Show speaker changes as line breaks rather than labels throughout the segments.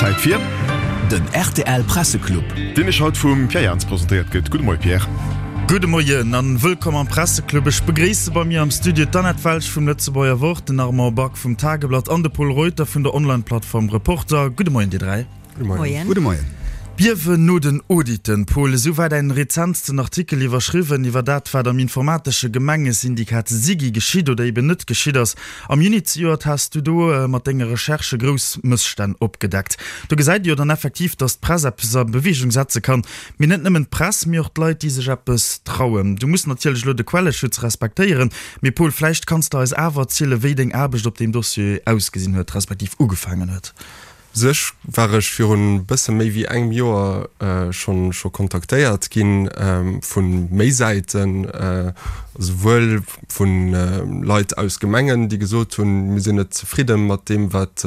Zäit fir.
Den rtl Presseclub.
Deen iech haut vum Pierre Jans presentéiert gëtt. Gudde Moie Pierre.
Gudde Moien an wëllkomm am Presseclub. Ech begréisse bei mir am Studio d'Annette Welsch vum Lëtzebuerger Wort, den Armand Back vum Tageblatt an de Pol Reuter vun der Online-Plattform Reporter. Gudde Moien dir 3.
Gudde Moien. Gudde Moien.
Biewen no den Auditen, Paul, esou war däin rezentsten Artikel iwwerschriwwen, iwwer dat, wat am informatesche Gemengesyndikat SIGI geschitt oder eben net geschitt ass. Am Juni zejoert has du do mat denge Recherchë grouss Mësstänn opgedeckt. Do gesäit ee jo dann effektiv, datt d'Press eppes a Beweegung setze kann. Mee net nëmmen d'Press, mee och d'Leit, déi sech eppes trauen. Du muss natierlech elo de Quelleschutz respektéieren, mee Paul, vläicht kanns de eis awer erzielen, wéi deng Aarbecht op deem Dossier ausgesinn huet, respektiv ugefaangen huet.
U sech war ech virun bësse méi wéi engem Joer schonn scho kontaktéiert ginn vu méi Säiten, esouwuel vu Leit aus Gemengen, déi gesot hunn, mir sinn net zefridde mat deem wat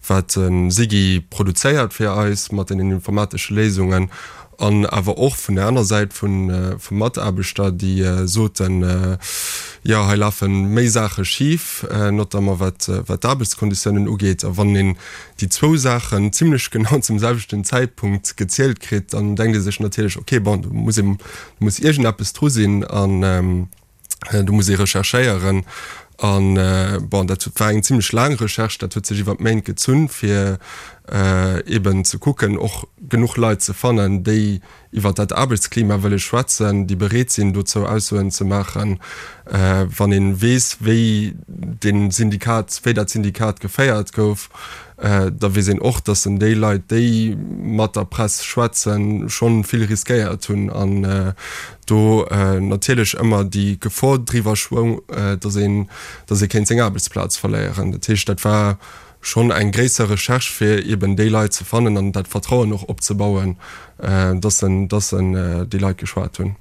wat de SIGI produzéiert fir eis mat deenen informatesche Léisungen, An awer och vun der aner Säit vu Mataarbechter, déi soten, jo hei lafe méi Saache schif, notamment wat d'Aarbechtskonditiounen ugeet. A wann een déi zwou Saachen zimlech genau zum selwechten Zäitpunkt gezielt kritt, dann denkt ee sech natierlech, okay, bon, do muss ee, do muss iergendeppes dru sinn. An do muss ee recherchéieren. An, bon, dat war eng zimlech laang Recherche, dat huet sech iwwer Méint gezunn, fir eeben ze kucken, och genuch Leit ze fannen, déi iwwer dat Aarbechtsklima wëlle schwätzen, déi bereet sinn, dozou Aussoen ze maachen. Wann ee weess, wéi dee Syndikat, wéi dat Syndikat geféiert gouf, Da weess een och, datt en déi Leit, déi mat der Press schwätzen, schonn vill riskéiert hunn an do natierlech ëmmer déi Gefor driwwer schwoung, datt een, datt ee kéint seng Aarbechtsplaz verléieren. Dat heescht, dat war schonn eng gréisser Recherche, fir eeben déi Leit ze fannen an dat Vertrauen och opzebauen, dass en, dass en déi Leit geschwat hunn.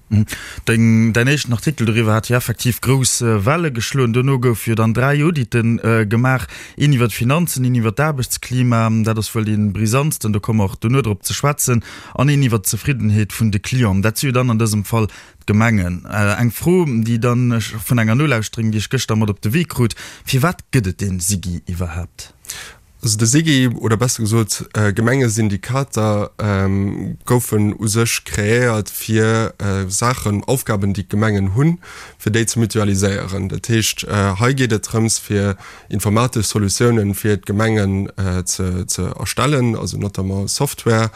Deng, däin éischten Artikel doriwwer hat jo effektiv grouss Welle geschloen. Dono goufe jo dann 3 Audite gemaach, een iwwer d'Finanzen, een iwwer d'Aarbechtsklima, dat ass wuel dee brisantsten, do komme mer och dono drop ze schwätzen, an een iwwer d'Zefriddenheet vun de Clienten. Dat si jo dann an dësem Fall d'Gemengen. Eng Fro, déi dann ech vun enger Nolauschterin, déi ech gëschter mat op de Wee krut, Firwat gëtt et dee SIGI iwwerhaapt?
Also de SIGI, oder besser gesot Gemengesyndikater, goufen u sech kreéiert fir Saachen, Aufgaben déi d'Gemengen hunn, fir déi ze mutualiséieren. Dat heescht hei geet et drëms fir informatesch Solutiounen fir d'Gemengen ze ze erstellen, also notamment Software.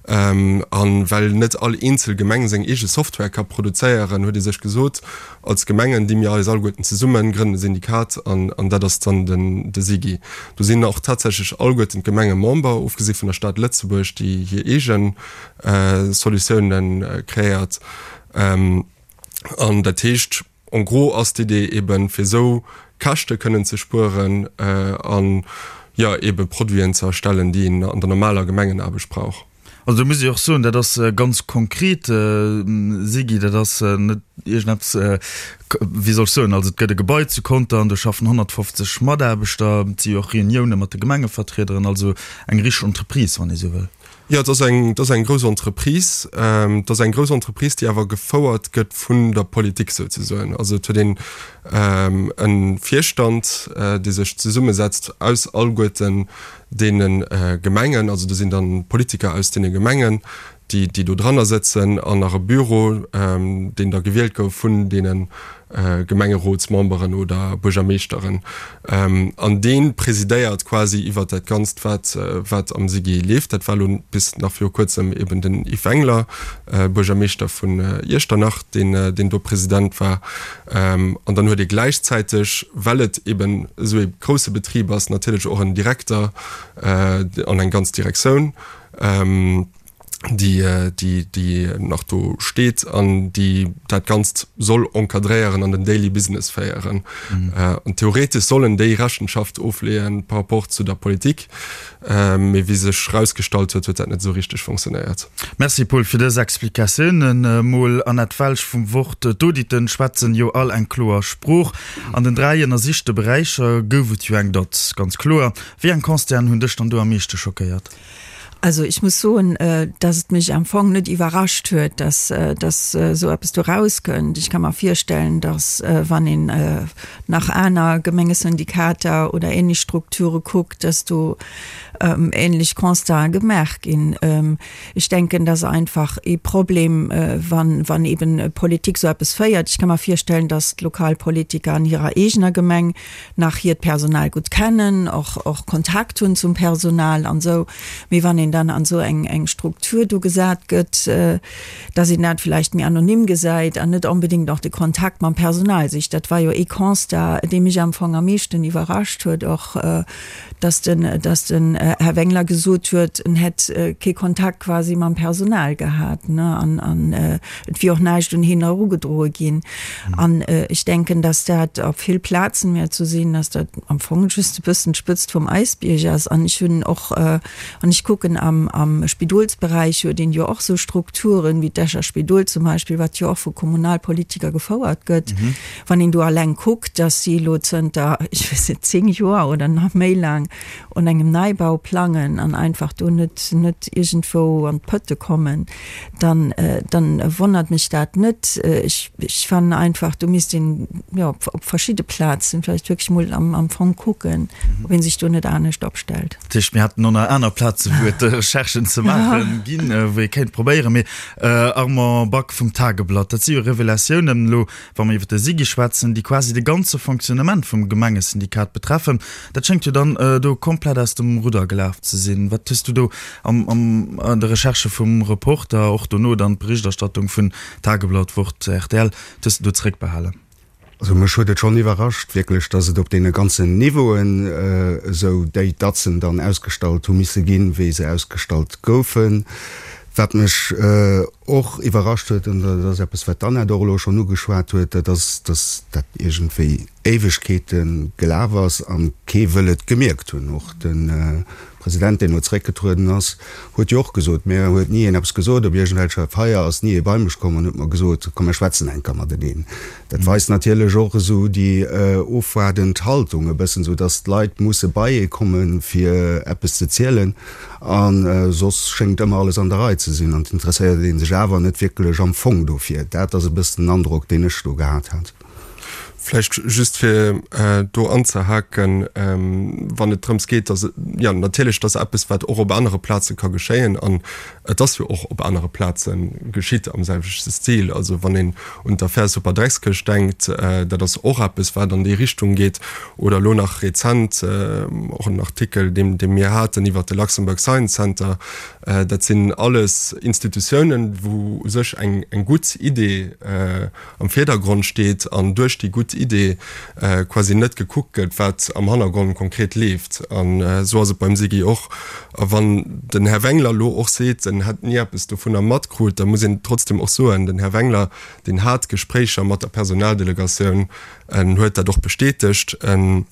A well net all eenzel Gemeng seng eege Software ka produzéieren, huet ee sech gesot, Als Gemengen di mir eis alleguerten zesummen, grënnen e Syndikat an an dat ass dann den de SIGI. Do sinn och tatsächlech alleguerten d'Gemenge Member, ofgesi vun der Stad Lëtzebuerg, déi hir eegen Solutiounen kreéiert. An dat heescht, en gros ass d'Idee eben, fir esou Käschte kënnen ze spueren an, jo, ebe Produiten ze erstellen, déi een an der normaler Gemengenaarbecht brauch.
Also do muss ech och soen, dat ass ganz konkret, Sigi, dat ass net iergendeppes, wéi soll ech soen, also et gëtt e Gebai zu Conter an do schaffen 150 Mataarbechter, et si jo och Reunioune mat de Gemengevertriederen, also eng richteg Entreprise, wann ee sou wëll.
Jo, et ass eng, et ass eng grouss Entreprise. Et ass eng grouss Entreprise, déi awer gefouert gëtt vun der Politik souzesoen. Also et huet een e Virstand, dee sech zesummesetzt aus alleguerten deene Gemengen, also do sinn dann Politiker aus deene Gemengen, déi déi do dranner sëtzen, an nach e Büro, deen da gewielt gouf vun deene Gemengerotsmemberen oder Buergermeeschteren. An dee presidéiert quasi iwwert dat Ganzt, wat wat am SIGI leeft. Dat war elo bis nach viru kuerzem eben den Yves Wengler, Buergermeeschter vun Iechternach, deen deen do President war. An dann huet ee gläichzäiteg, well et eben esou ee grousse Betrib ass, natierlech och en Direkter an eng ganz Direktioun, déi, déi, déi nach do steet an déi dat Ganzt soll encadréieren an den Daily Business féieren. An theoretesch sollen déi Rechenschaft ofleeën par rapport zu der Politik. Mee wéi sech rausgestallt huet, huet dat net esou richteg fonctionnéiert.
Merci Paul fir dës Explikatiounen. Mol Annette Welsch vum Wort. D'Auditen schwätzen jo all eng kloer Sprooch. An den 3 ënnersichte Beräicher gouf et jo eng Dot, ganz kloer. Wéi eng Constaten hunn dech dann do am meeschte schockéiert?
Also ech muss soen, dass et mech am Fong net iwwerrascht huet, dass dass esou eppes do rauskënnt. Ech ka mer virstellen, dass wann een nach aner Gemengesyndikater oder ähnlech Strukture kuckt, dass do. Ähnlech Constaten gemaach ginn. Ech denken, dat ass einfach ee Problem, wann, wann eben Politik esou eppes féiert. Ech ka mer virstellen, dass d'Lokalpolitiker an hirer eegener Gemeng nach hiert Personal gutt kennen, och, och Kontakt hunn zum Personal an esou. Mee wann een dann an esou eng, eng Struktur do gesat gëtt, dass een dat vläicht méi anonym gesäit an net onbedéngt och de Kontakt mam Personal sicht. Dat war jo ee Constat, dee mech am Fong am meeschten iwwerrascht huet och, dass den, dass den Här Wengler gesot huet, en hätt kee Kontakt quasi mam Personal gehat, ne, an, an et wier och näischt un hien erugedroe ginn. An ech denken, dass dat op vill Plazen wäert esou sinn, dass dat am Fong just e bëssen d'Spëtzt vum Äisbierg ass. An ech hunn och, wann ech kucken, am, am Spidolsberäich huet een jo och esou Strukturen, wéi d'Escher Spidol zum Beispill, wat jo och vu Kommunalpolitiker gefouert gëtt. Wann een do alleng kuckt, dass si elo zënter, ech weess net, 10 Joer oder nach méi laang un engem Neibau plangen an einfach do net, net iergendwou an d'Pëtte kommen, dann, dann wonnert mech dat net. Ech, ech fannen einfach, do misst een, jo, op, op verschidde Plazen vläicht wierklech mol am, am Fong kucken, ob ee sech do net anescht opstellt.
Dat heescht, mir hätten och nach aner Plaze wou et Recherchen ze maache ginn, wou ee kéint probéieren. Mee Armand Back vum Tageblatt, dat si jo Revelatiounen elo, Wa mer iwwer de SIGI schwätzen, déi quasi de ganze Fonctionnement vum Gemengesyndikat betreffen, dat schéngt jo dann do komplett aus dem Rudder gelaf ze sinn. Wat hues du do am an de Recherchë vum Reporter, och dono dann d'Berichterstattung vun Tageblatt, Wort, rtl, wat hues du do zeréckbehalen?
Also mech huet et schonn iwwerrascht wierklech, datt et op deene ganzen Niveauen esou déi Datzen dann ausgestallt hu misse ginn, wéi se ausgestallt goufen. Wat mech och iwwerrascht huet, an dat ass eppes, wat d'Annette och elo schonn ugeschwat huet, dat ass, dass dat iergendwéi Éiwegkeete gelaf ass a kee wëll et gemierkt hunn. Och de President, deen elo zeréckgetrueden ass, huet jo och gesot, Mir huet ni een eppes gesot, op iergendwelcher Feier ass ni ee bei mech komm an huet mer gesot, komm mir schwätzen eng Kéier mateneen. Dat weist natierlech och esou déi ofwaardend Haltung e bëssen, esou dass d'Leit musse bei ee kommen, fir eppes ze zielen. A soss schéngt ëmmer alles an der Rei ze sinn an et interesséiert ee sech awer net wierklech am Fong dofir. Dat ass e bëssen den Androck, deen ech do gehat hat.
Vläicht just fir do anzehaken, wann et drëms geet, dass, jo natierlech, dass eppes, wat och op anere Plaze ka geschéien, an et ass jo och op anere Plaze geschitt am selwechte Stil, also wann een un d'Affär Superdreckskëscht denkt, dat ass och eppes, wat an déi Richtung geet, Oder elo nach rezent och en Artikel, deen dee mir haten iwwert de Luxembourg Science Center. Dat sinn alles Institutiounen, wou u sech eng eng gutt Idee am Virdergrond steet an duerch déi gutt Idee quasi net gekuckt gëtt, wat am Hannergrond konkret leeft. An esou ass et beim SIGI och. A wann den Här Wengler elo och seet, en hätt ni eppes dovunner matkrut, da muss een trotzdem och soen, den Här Wengler, deen hat Gespréicher mat der Personaldelegatioun, En huet dat och bestätegt. En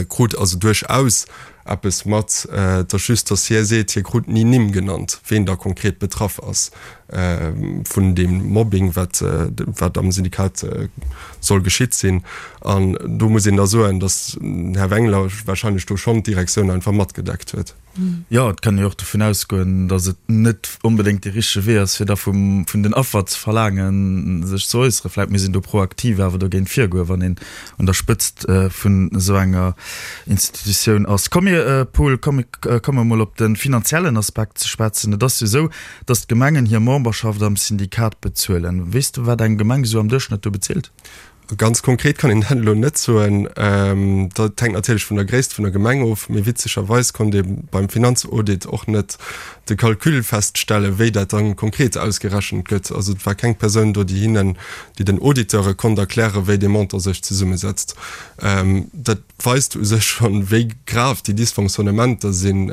krut also duerchaus eppes mat. Et ass just, datt hie seet, hie krut ni Nimm genannt, ween da konkret betraff ass vun deem Mobbing, wat wat am Syndikat soll geschitt sinn. An do muss een da soen, datt den Här Wengler warscheinlech do schonn d'Direktioun einfach matgedeckt huet.
Jo, et kann ee jo och dovun ausgoen, datt et net onbedéngt dee richtege Wee ass, fir da vum, vun den Affer ze verlaangen, sech ze äusseren. Vläicht misst een do proaktiv awer dogéint virgoen, wann een un der Spëtzt vun esou enger Institutioun ass. Komm mir, Paul, komm mir komme mol op de finanziellen Aspekt ze schwätzen. Et ass jo esou, datt d'Gemengen hir Memberschaft am Syndikat bezuelen. Weess de, wat eng Gemeng esou am Duerchschnëtt do bezilt?
Ganz konkret kann een dat elo net soen. Dat hänkt natierlech vun der Gréisst vun der Gemeng of. Mee witzegerweis konnt ee beim Finanzaudit och net de Calcul feststellen, wéi dat dann konkret ausgerechent gëtt. Also et war keng Persoun do, déi hinnen, déi den Auditeure konnt erklären, wéi dee Montant sech zesummesetzt. Dat weist u sech schonn, wéi grav déi Dysfonctionnementer sinn,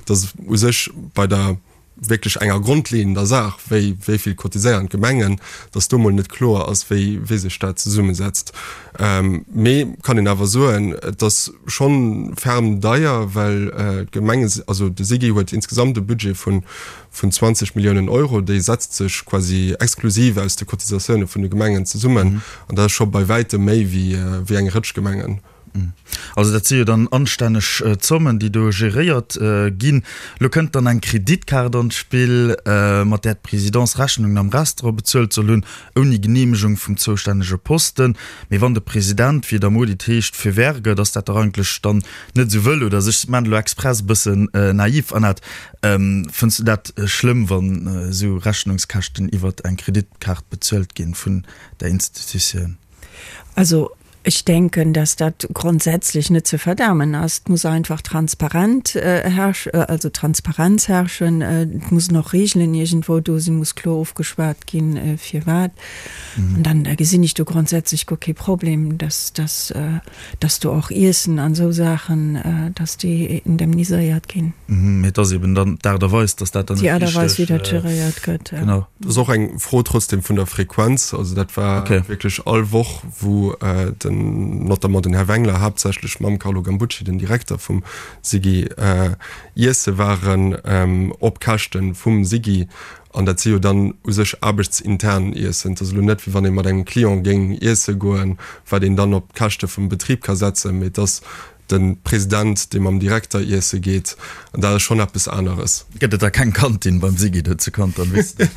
dass u sech bei der wierklech enger grondleeënder Saach, wéi wéi vill cotiséieren d'Gemengen, datt do mol net kloer ass, wéi wéi sech dat zesummesetzt. Mee kann een awer soen, et ass schonn ferm deier, well d'Gemenge, also de SIGI huet insgesamt e Budget vun vun 20 Milliounen Euro, déi setzt sech quasi exklusiv aus de Cotisatioune vun de Gemengen zesummen, an dat ass scho bei wäitem méi wéi wéi eng Rëtsch Gemengen.
Also dat si jo dann anstänneg Zommen, déi do geréiert ginn. Elo kënnt dann eng Kreditkaart an d'Spill, mat där d'Presidence Rechnungen am Restaurant bezuelt soll hunn, ouni Geneemegung vum zoustännege Posten. Mee wann de President, wéi et am Audit heescht, feu vert gëtt, ass dat dach eigentlech dann net esou wëll, oder? Also ech maachen elo express e bëssen naiv, Annette. Fënns du dat schlëmm, wann esou Rechnungskäschten iwwert eng Kreditkaart bezuelt ginn vun der Institutioun?
Also ech denken, dass dat grondsätzlech net ze verdamen ass. Et muss einfach transparent herrsch, also Transparenz herrschen. Et mussen och Regeln iergendwou do sinn, muss kloer ofgeschwat ginn, firwat. An dann gesinn ech do grondsätzlech guer kee Problem, dass, dass, dass do och Iessen an esou Saachen, dass déi indemniséiert ginn.
Mee et ass eben dann d'Aart a Weis, dass dat dann
net richteg. Déi Aart a Weis, wéi dat geréiert gëtt,
ja. Genau. Dat ass och eng Fro trotzdem vun der Frequenz. Also dat war wierklech all Woch, wou den, notamment den Här Wengler, haaptsächlech mam Carlo Gambucci, den Direkter vum SIGI, iesse waren op Käschte vum SIGI. An dat si jo dann u sech aarbechtsintern Iessen. Et ass elo net, wéi wann ee mat engem Client géing iesse goen, wat een dann op d'Käschte vum Betrib ka setzen, mee et ass de President, dee mam Direkter iesse geet, an dat ass schonn eppes aneres.
Gëtt et da keng Kantin beim Siggy do zu Contern, weess de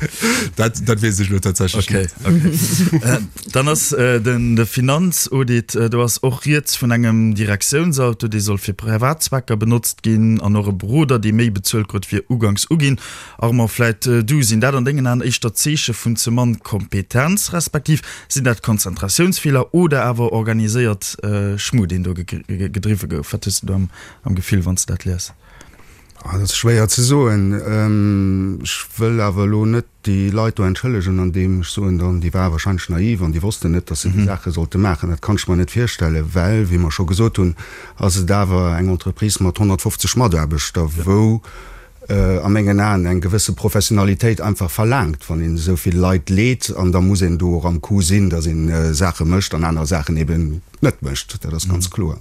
dat? Dat weess ech elo tatsächlech
net. Okay, okay. Dann ass den de Finanzaudit, do ass och rieds vun engem Direktiounsauto, dee soll fir privat Zwecker benotzt ginn, an och e Beroder, dee méi bezuelt krut wéi uganks uginn. Armand, vläit du, sinn dat an dengen Aen éischter Zeeche vun ze mann Kompetenz, respektiv sinn dat Konzentratiounsfeeler oder awer organiséiert Schmu, deen do gedriwwe gouf? Wat hues du do am Gefill, wann s de dat lies?
Dat ass schwéier ze soen. Ech wëll awer elo net déi Leit do entschëllegen, andeem ech soen dann, déi ware wahrscheinlech naiv an déi wossten net, datt se déi Saache sollte maachen. Dat kann ech mer net virstellen, well, wéi mer scho gesot hunn, ass et awer eng Entreprise mat 150 Mataarbechter, wou a mengen Aen eng gewësse Professionalitéit einfach verlaangt, wann een esou vill Leit leet, an da muss een do och am Coup sinn, datt een Saache mécht an aner Saachen eben net mécht. Dat ass ganz kloer.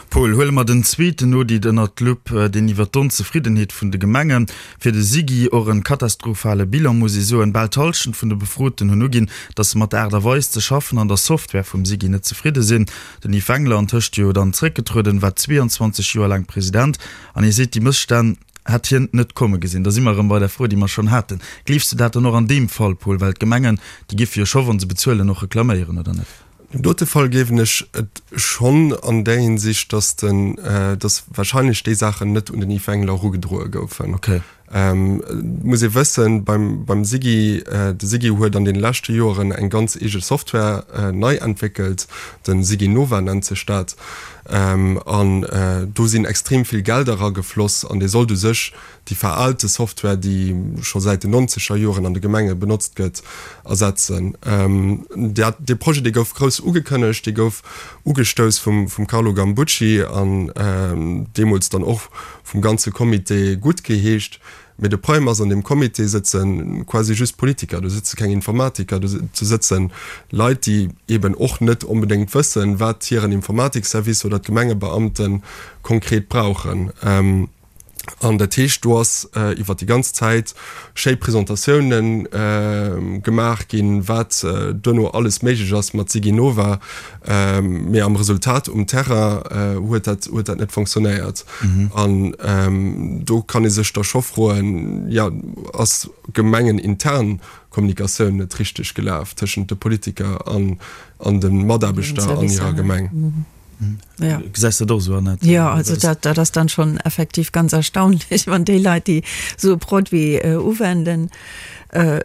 Paul, huele mer den zweeten Audit ënnert d'Lupp, deen iwwer d'Onzefriddenheet vun de Gemenge fir de SIGI, och en katastrophale Bilan, muss ee soen. Bal d'Hallschent vun de Befroten hunn uginn, datt se mat der Aart a Weis ze schaffen an der Software vum SIGI net zefridde sinn. Den Yves Wengler, antëscht jo dann zréckgetrueden, war 22 Joer laang President An hie seet, déi Mësstänn hätt hien net komme gesinn. Da si mer erëm bei der Fro, déi mer schonn haten. Gleefs de dat dann och an deem Fall, Paul? Well d'Gemengen, déi géife jo scho, wa se bezuelen, och reklaméieren, oder net?
An deem dote Fall gleewen ech et schonn an där Hinsicht, dass den, dass wahrscheinlech déi Saachen net un den Yves Wengler erugedroe goufen.
Okay.
Et muss ee wëssen, beim, beim SIGI, de SIGI huet an deene leschte Joeren eng ganz eege Software nei entwéckelt, de SIGI Nova nennt sech dat, an do sinn extrem vill Gelder eragefloss an dee sollt u sech déi veraalte Software, déi scho säit den nonzeger Joren an de Gemenge benotzt gëtt, ersetzen. Dat, dee Projet, dee gouf grouss ugekënnegt, dee gouf ugestouss vum, vum Carlo Gambucci an deemools dann och vum ganze Comité guttgeheescht. Mee de Problem ass, an deem Comité sëtze quasi just Politiker, do sëtze keng Informatiker, do sëtze Leit, déi eeben och net onbedéngt wëssen, wat hiren Informatikservice oder d'Gemengebeamte konkret brauchen. An dat heescht, do ass iwwer déi ganz Zäit schéi Presentatiounen gemaach ginn, wat duerno alles méiglech ass mat SigiNova. Mee am Resultat um Terrain huet dat, huet dat net fonctionnéiert. An do kann ee sech da scho froen, jo, ass gemengenintern Kommunikatioun net richteg gelaf tëschent de Politiker an, an de Mataarbechter an hirer Gemeng?
Ja. Gesäis de dat och esou,
Annette? Ja, also dat, dat ass dann schon effektiv ganz erstaunlich, wann déi Leit, déi esou e Produit uwenden,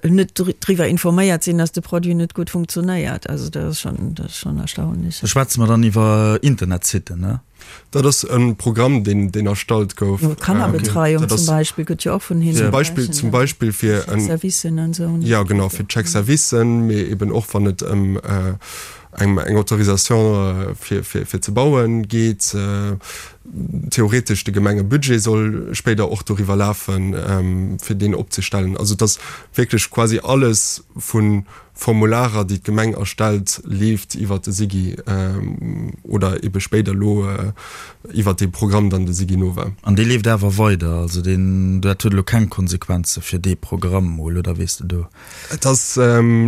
net driwwer informéiert sinn, dass de Produit net gutt funktionéiert. Also dat ass schon, dat ass schon erstaunlich.
Da schwätze mer dann iwwer Internetsitten, ne?
Dat ass e Programm, deen, deen erstallt gouf.
Kannerbetreiung zum Beispill gëtt jo och vun hinnen
Zum Beispill, zum Beispill fir en.
Chèque-servicen an
esou. Ja, genau, fir d'Chèque-servicen, mee eben och wann et ëm eng eng Autorisation fir fir fir ze bauen geet. Theoretesch de Gemengebudget soll spéider och doriwwer lafen, fir deen opzestellen. Also et ass wierklech quasi alles vun. Formularer, déi d'Gemeng erstellt, leeft iwwert de SIGI oder ebe spéider elo iwwert dee Programm dann de SIGINOVA.
An dee leeft awer weider? Also deen, dat huet elo keng Konsequenze fir dee Programm mol, oder weess de do?
Et ass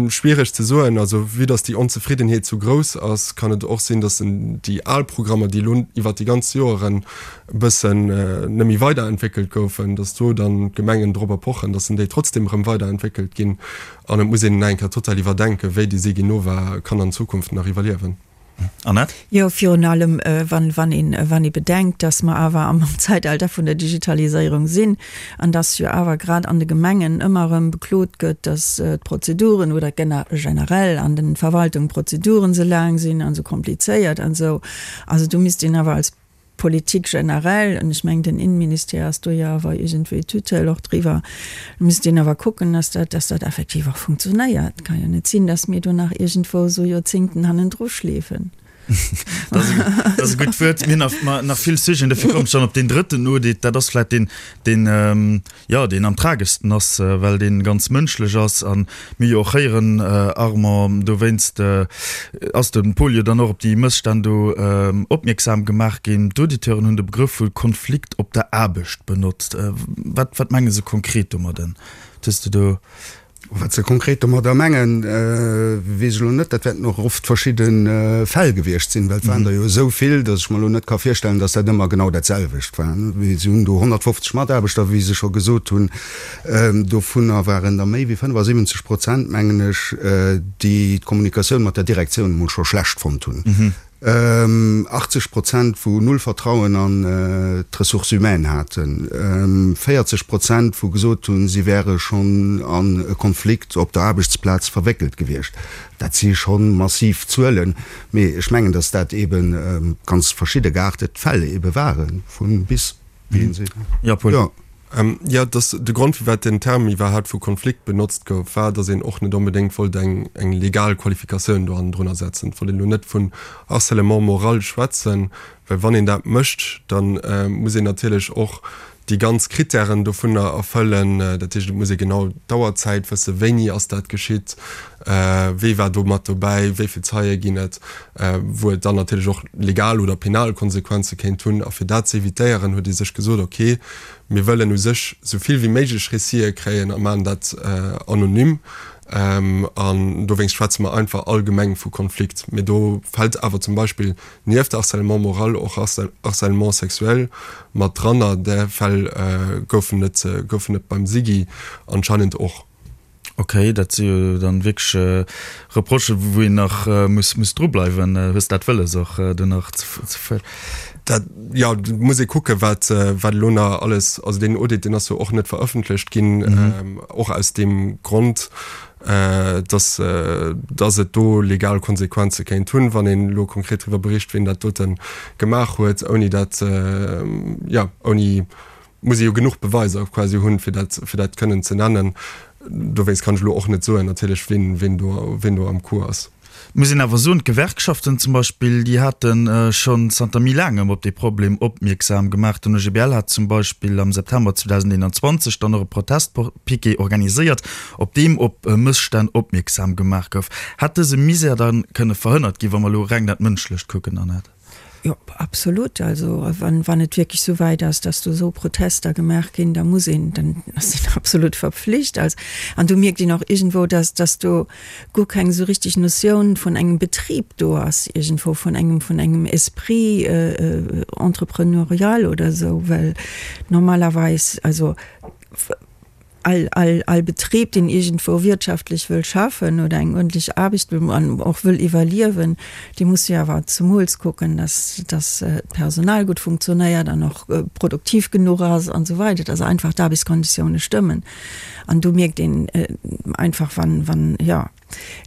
schwiereg ze soen. Also vue dass déi Onzefriddenheet sou grouss ass, kann et och sinn, dass déi al Programmer, déi elo iwwert déi ganz Joeren e bëssen net méi weiderentwéckelt goufen, dass do dann d'Gemengen dorobber pochen, dass déi trotzdem erëm weiderentwéckelt ginn. An et muss een nach eng Kéier total iwwerdenken, wéi déi Siginova kann an Zukunft nach iwwerliewen.
Annette?
Jo, virun allem, wann, wann een, wann ee bedenkt, dass mer awer am Zeitalter vun der Digitaliséierung sinn an dass jo awer grad an de Gemengen ëmmer erëm beklot gëtt, dass d'Prozeduren oder generell an den Verwaltungen d'Prozeduren esou laang sinn an esou komplizéiert an esou. Also do misst een awer als Politik generell, an ech mengen den Innenministère ass do jo awer iergendwéi Tutelle och driwwer, do misst een awer kucken, dass dat, dass dat effektiv och funktionéiert. Et ka jo net sinn, dass mir do nach iergendwou esou Joerzéngten hannendru schleefen.
Dat ass e gutt Wuert. Mir hunn nach, nach vill Sujeten, dofir kommen ech dann op deen drëtten Audit. Dat ass vläicht deen, deen, jo, deen am trageschsten ass, well dee ganz mënschlech ass a mir jo och héieren, Armand, dowéinst ass de Paul jo dann och op déi Mësstänn do opmierksam gemaach ginn. D'Auditeuren hunn de Begrëff vu Konflikt op der Aarbecht benotzt. Wat, wat menge se konkret domadden? Hues de do.
Wat se konkret domadder mengen, weess ech elo net. Dat wäerten och oft verschidde Fäll gewiescht sinn, well et waren der jo esou vill, datt ech mer elo net ka virstellen, datt dat ëmmer genau dat selwecht war. Si hunn do 150 Mataarbechter, wéi se scho gesot hunn. Dovunner waren der méi wéi 75 Prozent, mengen ech, déi d'Kommunikatioun mat der Direktioun emol scho schlecht fonnt hunn. 80 Prozent wou null Vertrauen an d'Ressources humaines haten, 40 Prozent wou gesot hunn, si wäre schonn an e Konflikt op der Aarbechtsplaz verwéckelt gewiescht. Dat si scho massiv Zuelen, mee ech mengen, datt dat ebe ganz verschidde geaartet Fäll ebe ware vu bis.
Jo, Paul. Jo, dass de Grond, firwat den Term iwwerhaapt vu Konflikt benotzt gouf, war, dass een och net onbedéngt wollt eng eng legal Qualifikatioun do hannendrunner setzen. Et wollt een elo net vun Harcèlement moral schwätzen, well wann een dat mécht, da muss een natierlech och déi ganz Krittären dovunner erfëllen. Dat heescht, et muss ee genau d'Auerzäit wëssen, wéini ass dat geschitt, Wie war do mat dobäi, wéi vill Zeie ginn et, wou et dann natierlech och legal oder penal Konsequenze kéint hunn. A fir dat ze evitéieren, huet ee sech gesot, ok, mir wëllen u sech esou vill wéi méiglech Récitë kréien a maachen dat anonym. An dowéinst schwätze mer einfach allgemeng vu Konflikt. Mee do fält awer zum Beispill nieft Harcèlement moral och Harcèlement sexuel mat dran. A där Fäll goufen et goufen et beim SIGI anscheinend och.
Ok, dat si jo dann wierklech Reprochen, wou een nach muss muss dru bleiwen. Hues dat wëlles och do nach ze.
Dat, jo, do muss ee kucken, wat wat elo nach alles, also deen Audit, deen ass jo och net verëffentlecht ginn, och aus deem Grond, dass dass et do legal Konsequenze kéint hunn, wann een elo konkret driwwer bericht, wien dat dote gemaach huet, ouni dat, jo, ouni muss ee jo genuch Beweiser quasi hunn, fir dat, fir dat kënnen ze nennen. Dowéinst kann ech elo och net soen natierlech, wien, wien do, wien do am Coup ass.
Muss een awer soen, d'Gewerkschaften zum Beispill, déi hate schonn zanter méi laangem op dee Problem opmierksam gemaach. Den OGBL hat zum Beispill am September 2021 dann och e Protestpiquet organiséiert, op deem op Mësstänn opmierksam gemaach gouf. Hätt dëse Misär da kënne verhënnert ginn, wa mer elo reng dat Mënschlecht kucken, Annette?
Jo, absolut. Also wann, wann et wierklech esou wäit ass, dass do esou Protester gemaach ginn, da muss een, dann ass een absolut verpflicht. Also, an do mierkt een och iergendwou, dass, dass do guer keng esou richtig Notioun vun engem Betrib do ass, iergendwou vun engem, vun engem Esprit entrepreneurial oder esou, well normalerweis, also all, all, all Betrib, deen iergendwou wirtschaftlech wëll schaffen oder eng uerdentlech Aarbecht wëll an och wëll iwwerliewen, dee muss jo awer zemools kucken, dass, dass d'Personal gutt funktionéiert an och produktiv genuch ass an esou weider, dass einfach d'Aarbechtskonditioune stëmmen. An do mierkt een einfach, wann, wann, jo,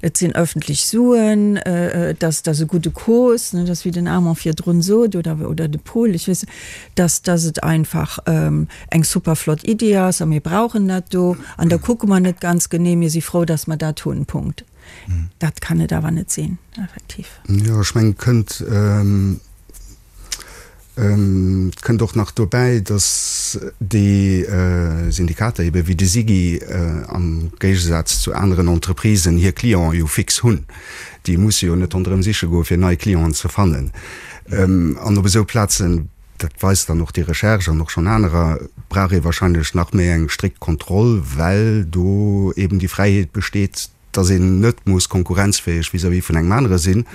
Et sinn öffentlech Suen, et ass, et ass e gudde Cause, ne, dass, wéi den Armand virdrun sot, oder, oder de Paul, ech weess net, dass, dass et einfach eng super flott Iddi ass a mir brauchen dat do an da kucke mer net ganz genee, mir si frou, dass mer dat hunn, Punkt. Dat kann et awer net sinn, effektiv.
Jo, ech mengen, et kënnt. Et kënnt och nach dobäi, datt déi Syndikater ebe wéi de SIGI am Géigesaz zu aneren Entreprisen hir Clienten jo fix hunn. Déi musse jo net ronderëm siche goe fir nei Clienten ze fannen. An op esou Plazen, dat weist dann och déi Recherche an och schonn anerer, brauch ee wahrscheinlech nach méi eng strikt Kontroll, well do eben déi Fräiheet besteet, dass een net muss konkurrenzfäeg vis-à-vis vun engem anere sinn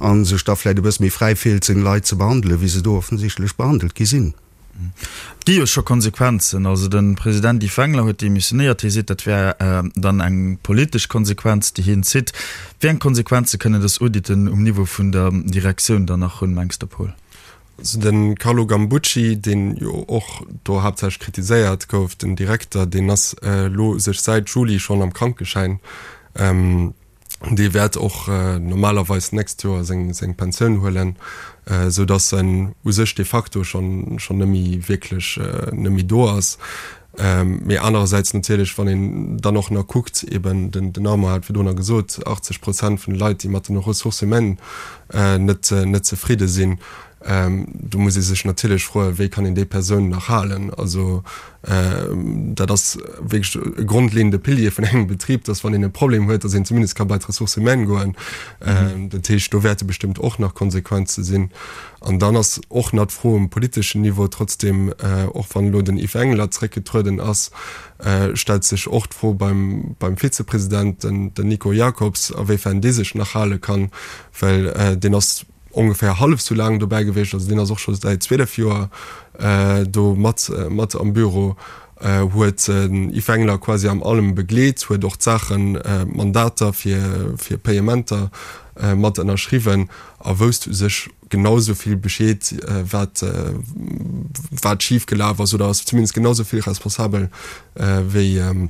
a sech da vläicht e bësse méi fräi fillt, seng Leit ze behandelen, wéi se do offensichtlech behandelt gi sinn.
Et gi jo scho Konsequenzen. Also de President Yves Wengler huet demissionéiert. Hie seet, dat wär dann eng politesch Konsequenz, déi hien zitt. Wéi eng Konsequenze kënnen dës Auditen um Niveau vun der Direktioun dann nach hunn, mengs de, Paul?
Also de Carlo Gambucci, deen jo och do haaptsächlech kritiséiert gouf, den Direkter, deen ass elo u sech säit Juli schonn am Krankeschäin. Dee wäert och normalerweis d'nächst Joer seng seng Pensioun huelen, esou datt en u sech de facto schonn schonn net méi wierklech net méi do ass. Mee anerersäits natierlech, wann een dann och nach kuckt, eben den den Armand hat virdrunner gesot, 80 Prozent vun de Leit, déi mat den Ressources humaines net net zefridde sinn, do muss ee sech natierlech froen, wéi kann een déi Persoun nach halen? Also dat ass wierklech e grondleeënde Pilier vun engem Betrib, dass wann een e Problem huet, dass een zumindest ka bei d'Ressources humaines goen. Dat heescht, do wäerte bestëmmt och nach Konsequenze sinn. An dann ass och nach d'Fro um politeschen Niveau, trotzdem, och wann elo den Yves Engler zréckgetrueden ass, stellt sech och d'Fro beim, beim Vizepresident, den, den Nico Jacobs, awéifern dee sech nach hale kann, well deen ass ongeféier hallef esou laang dobäi gewiescht, also deen ass och scho säit 12 Joer do mat, mat am Büro, huet den Yves Engler quasi am allem begleet, huet och d'Saachen, d'Mandater fir, fir Payementer mat ënnerschriwwen. a wousst u sech genau esou vill Bescheed, wat, wat schif gelaf ass, oder ass zumindest genau esou vill responsabel wéi,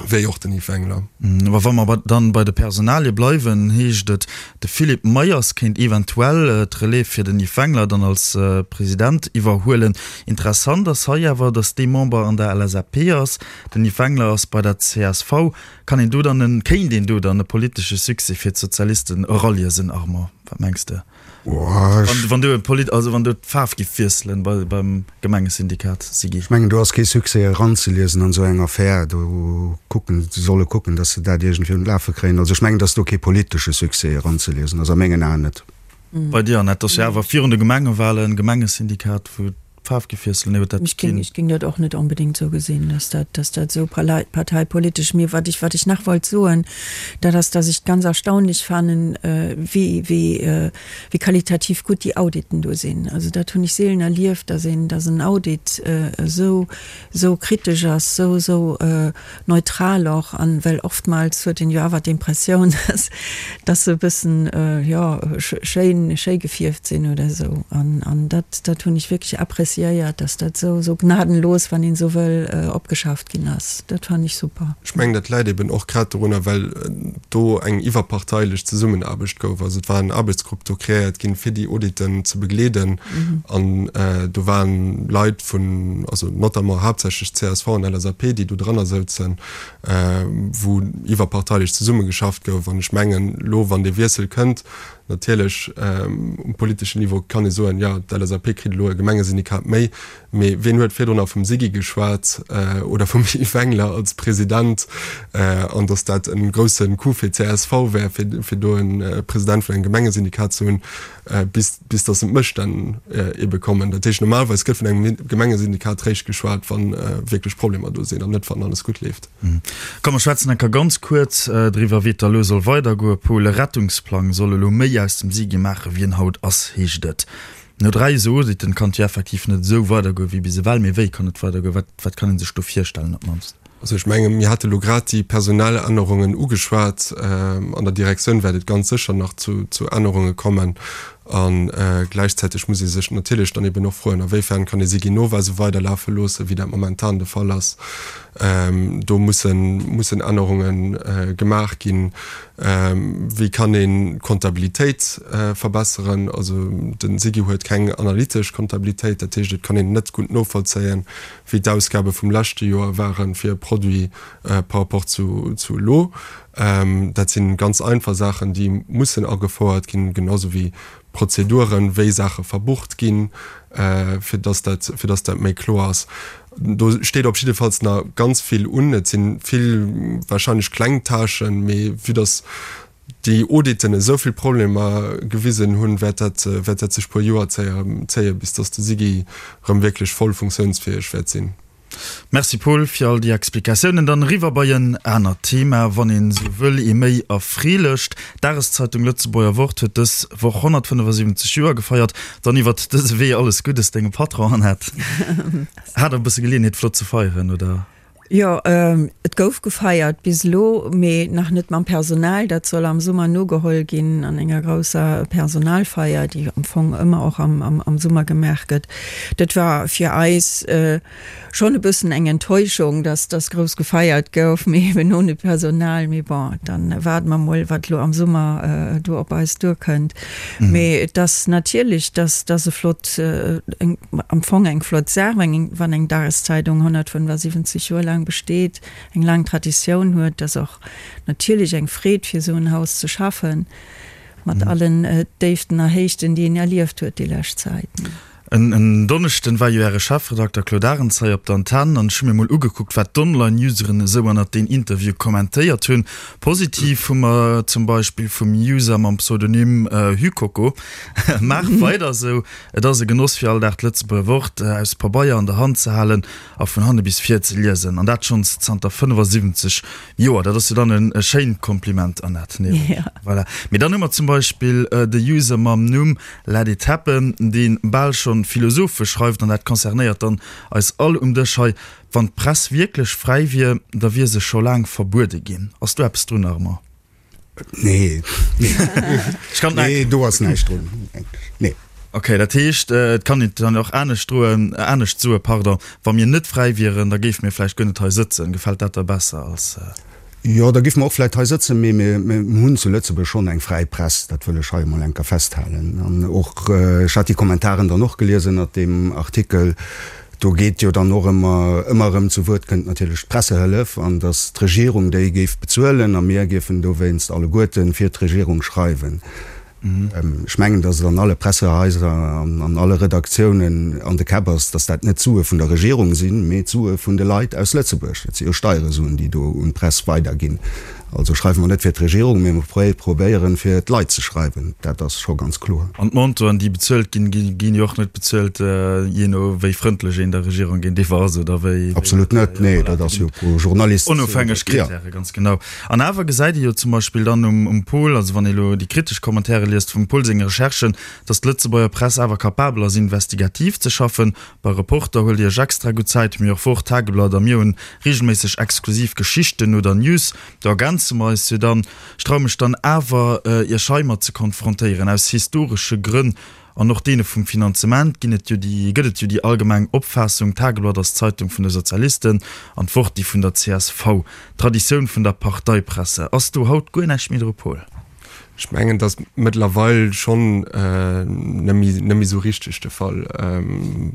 wéi och den Yves Wengler.
Awer wa mer dann bei de Personalie bleiwen, heescht et, de Philippe Meyers kéint eventuell d'Relève fir den Yves Wengler dann als President iwwerhuelen. Interessant ass hei awer, datt dee Member an der LSAP ass, den Yves Wengler ass bei der csv. Kann een do dann en, kéint een do dann e politesche Succès fir d'Sozialisten eraliesen, Armand? Wat mengs de? Wann, wann do e Polit, also wann do d'Faarf giff wiesselen bei, beim Gemengesyndikat, Siggy?
Ech mengen, do ass kee Succès eranzeliesen an esou eng Affär. Do kucken, se solle kucken, datt se dat iergendwéi un d'Lafe kréien. Also ech mengen, datt do kee politesche Succès eranzeliesen ass, a mengen Aen net.
Bei dir, Annette, ass jo awer virun de Gemengewahlen, Gemengesyndikat, wou D'Faarf gi wiesselen, nee, huet dat
Ech géing, ech géing dat och net onbedéngt esou gesinn, dass dat, dass dat esou parteipolitesch. Mee wat ech, wat ech nach wollt soen, dat ass, dass ech ganz erstaunlech fannen, wéi, wéi, wéi qualitativ gutt déi Auditen do sinn. Also dat hunn ech seelen erlieft, dass een, dass en Audit esou, esou kritesch ass, esou, esou neutral och, an well oftmals huet een jo awer d'Impressioun, dass dass se e bëssen, jo, schéin, schéi gefierft sinn oder esou. An an dat dat hunn ech wierklech appréciéiert, dass dat esou esou gnadenlos, wann een esou wëll, opgeschafft ginn ass. Dat fannen ech super.
Ech mengen, dat läit eben och grad dorunner, well do eng iwwerparteilech Zesummenaarbecht gouf. Also et war en Aarbechtsgrupp do kreéiert ginn, fir déi Auditen ze begleeden. An do waren Leit vun, also notamment haaptsächlech csv an LSAP, déi do dranner souzen, wou iwwerparteilech zesummegeschafft gouf. An ech mengen, elo wann dee Wiessel kënnt, natierlech um politeschen Niveau kann ee soen, jo, d'LSAP kritt elo e Gemengesyndikat méi, mee wien huet virdrunner vum Siggy geschwat oder vum Yves Wengler als President an datt dat e grousse Coup fir d'CSV wär, fir do e President vun engem Gemengesyndikat ze hunn. bis, bis dass d'Mësstänn ebe kommen. Dat heescht, normalerweis gëtt vun engem Gemengesyndikat réischt geschwat, wa wierklech Problemer do sinn an net, wann alles gutt leeft.
Komm, mer schwätzen enker ganz kuerz driwwer, wéi et da elo soll weidergoen. Paul, e Rettungsplang soll elo méi aus dem SIGI maachen, wéi en haut ass, heescht et. No 3 esou Auditen kann et jo effektiv net esou weidergoen wéi bis ewell. Mee wéi kann et weidergoen? Wat, wat kann ee sech do virstellen op d'mannst?
Also ech menge mir hate lo grad déi personell Ännerungen ugeschwat. An der Direktioun wäert et ganz sécher nach zu Ännerunge kommen. A gläichzäiteg muss ee sech natierlech dann eben och froen, awéifern kann ee Siginova esou weiderlafe loossen, wéi dat momentan de Fall ass. Do mussen mussen Ännerunge gemaach ginn. Wéi kann een d'Kontabilitéit verbesseren? Also de SIGI huet keng analytesch Kontabilitéit, dat heescht et kann een net gutt novollzéien, wéi d'Ausgabe vum leschte Joer ware fir e Produit par rapport zu elo. Dat si ganz einfach Saachen, déi mussen agefouert ginn, genau sou wéi. Prozeduren, wéi Saache verbucht ginn, fir dass dat, fir dass dat méi kloer ass. Do steet op jiddefalls nach ganz vill un. Et si vill wahrscheinlech kleng Tâchen, mee vue dass déi Auditen esou vill Problemer gewisen hunn, wäert dat, wäert dat sech puer Joer zéien, bis dass de SIGI erëm wierklech voll funktiounsfäeg wäert sinn.
Merci Paul fir all déi Explikatiounen. Dann eriwwer bei en anert Thema, wann een esou wëll, ee méi erfreelecht. D'Dageszeitung Lëtzebuerger Wort huet dës Woch 175 Joer gefeiert. Dann iwwert dëse Wee alles Guddes dengem Patron Annette. Hat der e bësse Geleeënheet flott ze feieren, oder?
Jo, et gouf gefeiert bis elo, mee nach net mam Personal. Dat soll am Summer nogeholl ginn an enger grousser Personalfeier, déi am Fong ëmmer och am Summer gemaach gëtt. Dat war fir eis schonn e bëssen eng Enttäuschung, dass dass grouss gefeiert gouf, mee eben ohne Personal. Mee bon, dann waarde mer mol, wat elo am Summer do op eis duerkënnt. Mee et ass natierlech, dass dass e flott, eng, am Fong eng flott Saach, wann eng Dageszeidung 175 Joer laang besteet, eng laang Traditioun huet. Et ass och natierlech eng Freed, fir esou en Haus ze schaffen, mat allen Déiften a Héichten, déi een erlieft huet déi lescht Zäit.
En Donneschden war jo äre Chefredakter Claude Arends hei op der Antenn an ech hu mir mol ugekuckt, wat d'Online-Useren esou ënnert deen Interview kommentéiert hunn. Positiv hu mer zum Beispill vum User mam Pseudonym Hykoko, Maach weider esou, et ass e Genoss fir all Dag d'Lëtzebuerger Wort aus Pabeier an der Hand ze halen a vun hanne bis vir ze liesen. An dat schonns zanter 75 Joer. Dat ass jo dann e schéint Kompliment, Annette, nee? Voilà. Mee dann hu mer zum Beispill de User mam Numm Let it happen, dee bal schonn philosophesch schreift, an dat concernéiert dann eis all um Dësch hei, Wann d'Press wierklech fräi wier, da wier se scho laang verbuede ginn. Ass do eppes drun, Armand?
Nee, nee, do ass näischt drun.
Nee. Ok, dat heescht, et kann een et dann och anescht droen, anescht soen, pardon, Wa mir net fräi wieren, da géife mir vläicht guer net hei sëtzen. Gefält dat der besser als.
Jo, da géife mer och vläicht hei sëtzen, mee mir hunn zu Lëtzebuerg schonn eng fräi Press, dat wëll ech hei emol eng Kéier festhalen. An och, ech hat déi Kommentaren dann och gelies ënnert deem Artikel, do geet jo dann och ëmmer, ëmmer erëm zu Wuert kënnt natierlech d'Pressehëllef an datt d'Regierung déi géif bezuelen a mir géifen dowéinst alleguerte fir d'Regierung schreiwen. Ech mengen, datt et an alle Pressehaiser an an alle Redaktiounen an de Käpp ass, datt dat net d'Sue vun der Regierung sinn, mee d'Sue vun de Leit aus Lëtzebuerg. Dat si jo Steieresuen, déi do un d'Press weiderginn. Also schreiwe mer net fir d'Regierung, mee mer probéieren, fir d'Leit ze schreiwen. Dat ass scho ganz kloer.
An d'Montoren, déi bezuelt ginn, ginn jo och net bezuelt, jee no wéi frëndlech een der Regierung géintiwwer ass oder wéi.
Absolut net, nee, dat ass jo pro Journalist.
Onofhängeg Kritäre, ganz genau. An awer gesäit ee jo zum Beispill dann um Pol, also wann ee elo déi kritesch Commentaire liest vum Pol senge Recherchen, datt d'Lëtzebuerger Press awer capabel ass investigativ ze schaffen. Bei Reporter huelt Dir Iech extra gutt Zäit, mee och Wort, Tageblatt a mir hunn regelméisseg exklusiv Geschichten oder News. Do ergänze mer eis jo dann. Ech traue mech dann awer Iech heimat ze konfrontéieren, aus historesche Grënn An och deene vum Finanzement ginn et jo déi, gëtt et jo déi allgemeng Opfaassung, d'Tageblatt ass d'Zeitung vun de Sozialisten an d'Wort déi vun der csv. D'Traditioun vun der Parteipresse. Ass do haut guer näischt méi dru, Paul?
Ech mengen, et ass mëttlerweil schonn net méi, net méi esou richteg de Fall.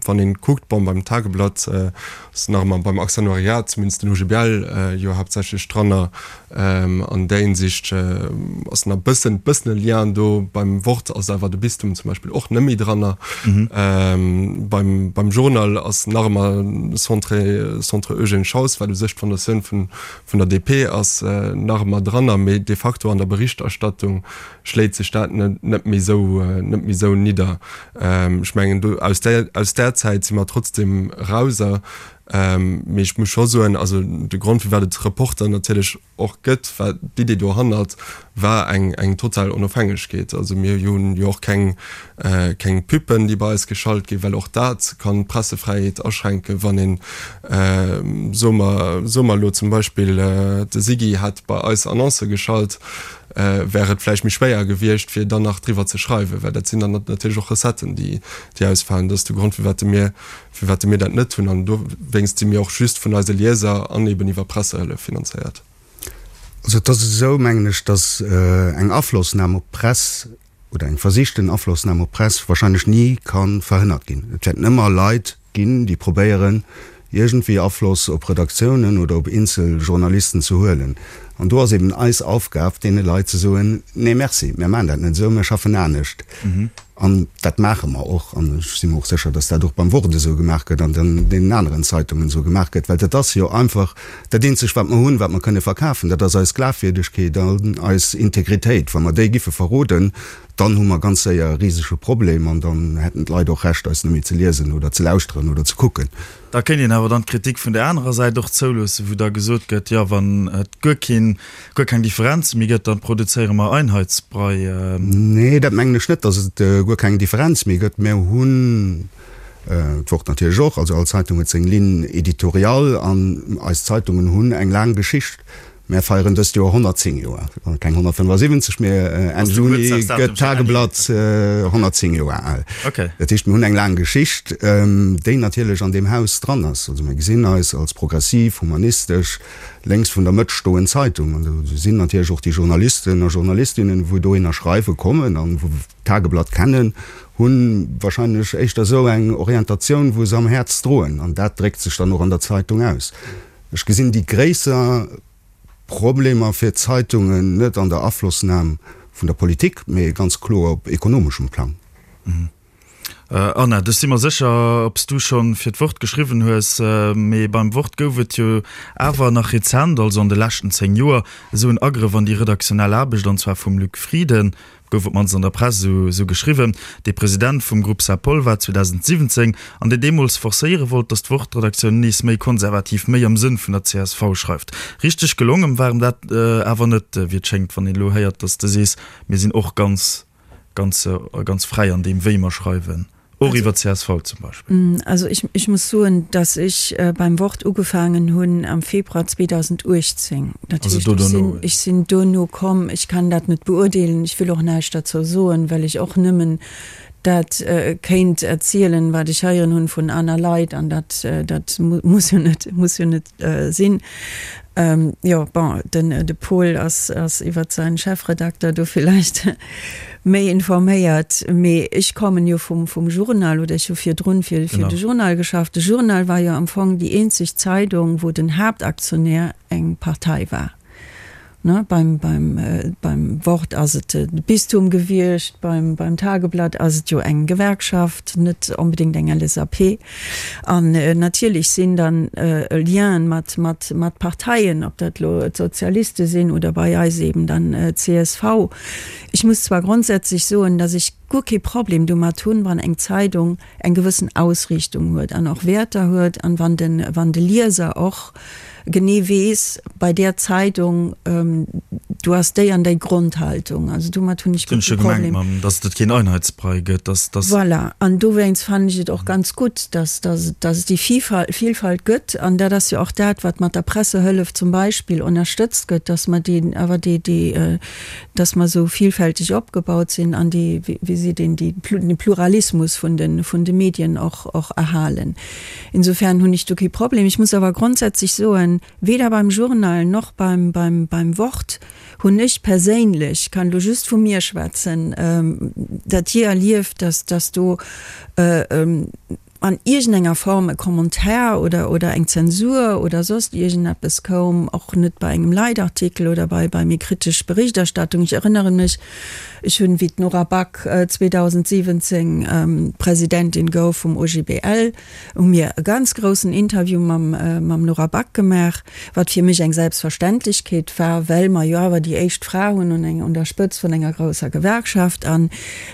Wann een kuckt, bon, beim Tageblatt ass nach ëmmer beim Aktionariat, zumindest den OGBL, jo haaptsächlech dranner, An där Hinsicht ass nach bëssen bëssen e Lien do. Beim Wort ass awer de Bistum zum Beispill och net méi dranner. Beim beim Journal ass nach ëmmer Centre Centre Eugène Schaus, wat u sech d'Fondatioun vun vun der DP ass, nach ëmmer dranner, mee de facto an der Berichterstattung schléit sech dat net net méi esou net méi esou nidder. Ech mengen do aus där aus där Zäit si mer trotzdem rauser. Mee ech muss scho soen, also de Grond firwat et Reporter natierlech och gëtt, war d'Idee dohannert war eng eng total Onofhängegkeet. Also mir hunn jo och keng keng Pubben, déi bei eis geschalt ginn, well och dat kann d'Pressefräiheet aschränken, wann een, soe mer soe mer elo zum Beispill de Siggy hätt bei eis Annoncë geschalt, wär et vläicht méi schwéier gewiescht fir dann nach driwwer ze schreiwen, well dat sinn dann natierlech och Recetten, déi déi ausfalen. Dat ass de Grond firwat mir firwat mir dat net hunn. An dowéinst si mir och just vun eise Lieser an eben iwwer Pressehëllef finanzéiert.
Also et ass esou, mengen ech, datt eng Aflossnam op d'Press oder eng versichten Aflossnam op d'Press wahrscheinlech ni ka verhënnert ginn. Et wäerten ëmmer Leit ginn, déi probéieren, iergendwéi Afloss op Redaktiounen oder op eenzel Journalisten ze huelen. An do ass eben eis Aufgab, deene Leit ze soen, Nee, merci, mir maachen dat net esou, mir schaffen anescht. An dat maache mer och. An ech si mer och sécher, datt dat och beim Wort esou gemaach gëtt an an deenen aneren Zeitungen esou gemaach gëtt, well dat ass jo einfach dat eenzegt, wat mer hunn, wat mer kënne verkafen, dat ass eis Glafwierdegkeet an eis Integritéit. Wa mer déi giffe verroden, dann hu mer ganz séier e risege Problem an dann hätten d'Leit och Recht, eis net méi ze liesen oder ze lauschteren oder ze kucken.
Da kéint een awer dann d'Kritik vun där anerer Säit och zouloossen, wou da gesot gëtt, jo, wann et guer keen, guer keng Differenze méi gëtt, dann produzéiere mer Einheitsbrei.
Nee, dat mengen ech net, datt et guer keng Differenz méi gëtt. Mir hunn d'Wort natierlech och, also all Zeitung huet seng Ligne éditoriale an eis Zeitungen hunn eng laang Geschicht. Mär feieren dëst Joer 110 Joer, keng 175, mee Enn Juni gëtt d'Tageblatt 110 Joer al. Dat heescht, mir hunn eng laang Geschicht, déi natierlech an deem Haus dran ass. Also mir gesinn eis als progressiv, humanistesch, lénks vun der Mëtt stoend Zeitung. An do sinn natierlech och déi Journalisten a Journalistinnen, wou dohinner schreiwe kommen an wou d'Tageblatt kennen, hu wahrscheinlech éischter esou eng Orientatioun, wou se am Häerz droen. An dat dréckt sech dann och an der Zeitung aus. Ech gesinn déi gréisser Problemer fir d'Zeitungen net an der Aflossnam vun der Politik, mee ganz kloer op ekonomeschem Plang.
Anna, ech si mer sécher, ob s du scho fir d'Wort geschriwwen hues, mee beim Wort gouf et jo awer nach rezent, also an de leschten 10 Joer, esou en Agrëff an déi redaktionell Aarbecht, an zwar vum Luc Frieden. Gouf op d'mannst an der Press esou geschriwwen. Dee President vum Groupe Saint-Paul war 2017 an deen deemools forcéiere wollt, datt d'Wort-Redaktioun nees méi konservativ, méi am Sënn vun der csv schreift. Richteg gelongen war em dat awer net, wéi et schéngt, wann een elo héiert, datt s de sees, mir sinn och ganz, ganz, ganz fräi an deem, wéi mer schreiwen. Och iwwer csv zum Beispill.
Also ich, ich muss soen, dass ech beim Wort ugefaangen hunn am Februar 2018. Dat heescht, ech sinn, ech sinn duerno komm. Ech kann dat net beurdeelen. Ech wëll och näischt derzou soen, well ech och nëmmen dat kéint erzielen, wat ech heieren hunn vun aner Leit, an dat, dat muss jo net, muss jo net sinn. Jo, bon, den de Paul ass ass iwwert säin Chefredakter do villäicht méi informéiert, mee ech kommen jo vum vum Journal, oder ech hu virdrun fir fir de Journal geschafft. De Journal war jo am Fong déi eenzeg Zeidung, wou den Haaptaktionär eng Partei war. Ne, beim beim beim Wort ass et de Bistum gewiescht, beim beim Tageblatt ass et jo eng Gewerkschaft, net onbedéngt eng LSAP. An natierlech sinn dann Lienen mat mat mat Parteien, ob dat elo d'Sozialiste sinn oder bei eis eben dann csv. Ech muss zwar grondsätzlech soen, datt ech guer kee Problem domat hunn, wann eng Zeidung eng gewëssen Ausriichtung huet an och Wäerter huet an wann de wann de Lieser och genee weess, bei där Zeidung, do ass déi an déi Grondhaltung. Also domat hunn ech guer kee Problem.
Mam, datt et keen Einheitsbrei gëtt, datt, datt.
Voilà. An dowéinst fannen ech et och ganz gutt, datt, datt, datt et déi Vielfalt, Vielfalt gëtt. An dat ass jo och dat, wat mat der Pressehëllef zum Beispill ënnerstëtzt gëtt, datt mer déi, awer déi, déi, datt mer esou vielfälteg opgebaut sinn an déi, wéi seet een, déi, den Pluralismus vun de, vun de Medien och, och erhalen. Insofern hunn ech do kee Problem. Ech muss awer grondsätzlech soen, weder beim Journal noch beim, beim, beim Wort hunn ech perséinlech, kann elo just vu mir schwätzen, dat jee erlieft, dass, dass do an iergendenger Form e Commentaire oder, oder eng Zensur oder soss iergendeppes koum, och net bei engem Leitartikel oder bei, bei méi kritesch Berichterstattung. Ech erënnere mech, Ech hunn, wéi d'Nora Back 2017 Presidentin gouf vum OGBL, hu mir e ganz groussen Interview mam mam Nora Back gemaach, wat fir mech eng Selbstverständlechkeet war, well mer jo awer déi éischt Fra hunn un eng un der Spëtzt vun enger grousser Gewerkschaft. An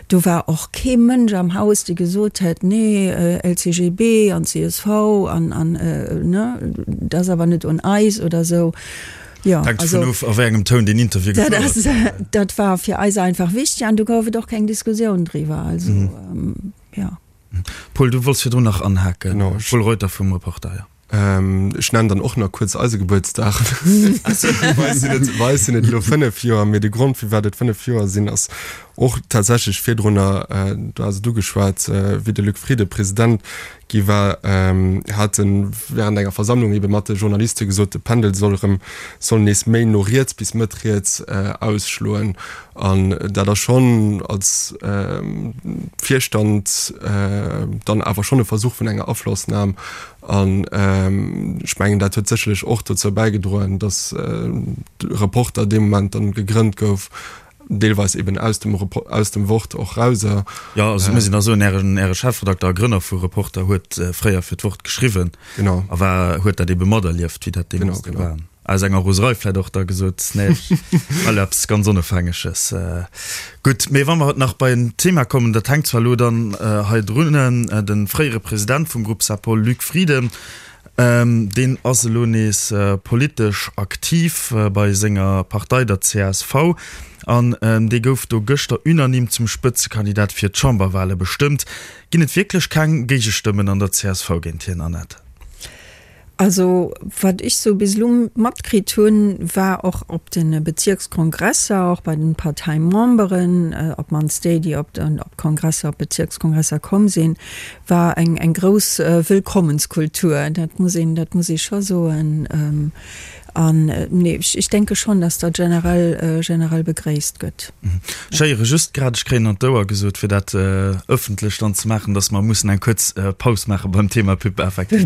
do war och kee Mënsch am Haus, dee gesot hätt, nee, LCGB an csv an an ne, dat ass awer net un eis oder esou.
Jo, Hänkt also, dovun of, a wéi engem Toun deen Interview
dat gefouert ass, gëtt. dat war fir eis einfach wichteg an do gouf et och keng Diskussioun driwwer. Also, ähm, ja.
Paul, du wollts virdrun nach anhaken. Genau, ech- Paul Reuter vum Reporter,
jo. Ähm, ech nennen dann och nach kuerz eise Gebuertsdag. Bei eis sinn et, bei eis sinn et elo 5 Joer, mee de Grond, firwat et 5 Joer sinn, ass. Och tatsächlech virdrunner, du has et ugeschwat, wéi de Luc Frieden President gi war, hat e während enger Versammlung ebe mat de Journaliste gesot, de Pendel soll erëm, soll nees méi no riets bis mëtt riets ausschloen. An dat ass schonn als Virstand dann awer schonn e Versuch vun enger Aflossnam. An ech mengen, dat huet sécherlech och dozou bäigedroen, datt de Reporter dee Moment dann gegrënnt gouf, deelweis eben aus dem, aus dem Wort och raus.
Jo, also et muss een da soen, Ären, Äre Chefredakter a Grënner vu Reporter huet fréier fir d'Wort geschriwwen.
Genau.
A war, huet dat ebe materlieft, wéi dat deemools
do war.
Aus enger Roserei vläit och da gesot, nee, ech well eppes ganz Onofhängeges. Gutt, mee wa mer nach bei en Thema kommen, dat hänkt zwar elo dann hei drun, de fréiere President vum Groupe Sapol, Luc Frieden, Deen ass elo nees politesch aktiv bei senger Partei, der csv, an dee gouf do gëschter unanime zum Spëtzekandidat fir d'Chamberwale bestëmmt. Ginn et wierklech keng Géigestëmmen an der csv géint hien, Annette?
Also wat ech sou bis elo matkritt hunn, war och op de Bezierkskongresser, och bei den Parteimemberen, op d'mannst déi, déi op d'Kongresser, op d'Bezierkskongresser komm sinn, war eng eng grouss Wëllkommenskultur, dat muss een, dat muss ee scho soen. An nee, ech ech denke schonn, datt dat generell, generell begréisst gëtt.
Ech héiere just grad, ech kréien an d'Ouer gesot, fir dat ëffentlech dann ze maachen, datt mer mussen eng kuerz Paus maache beim Thema Pub effektiv.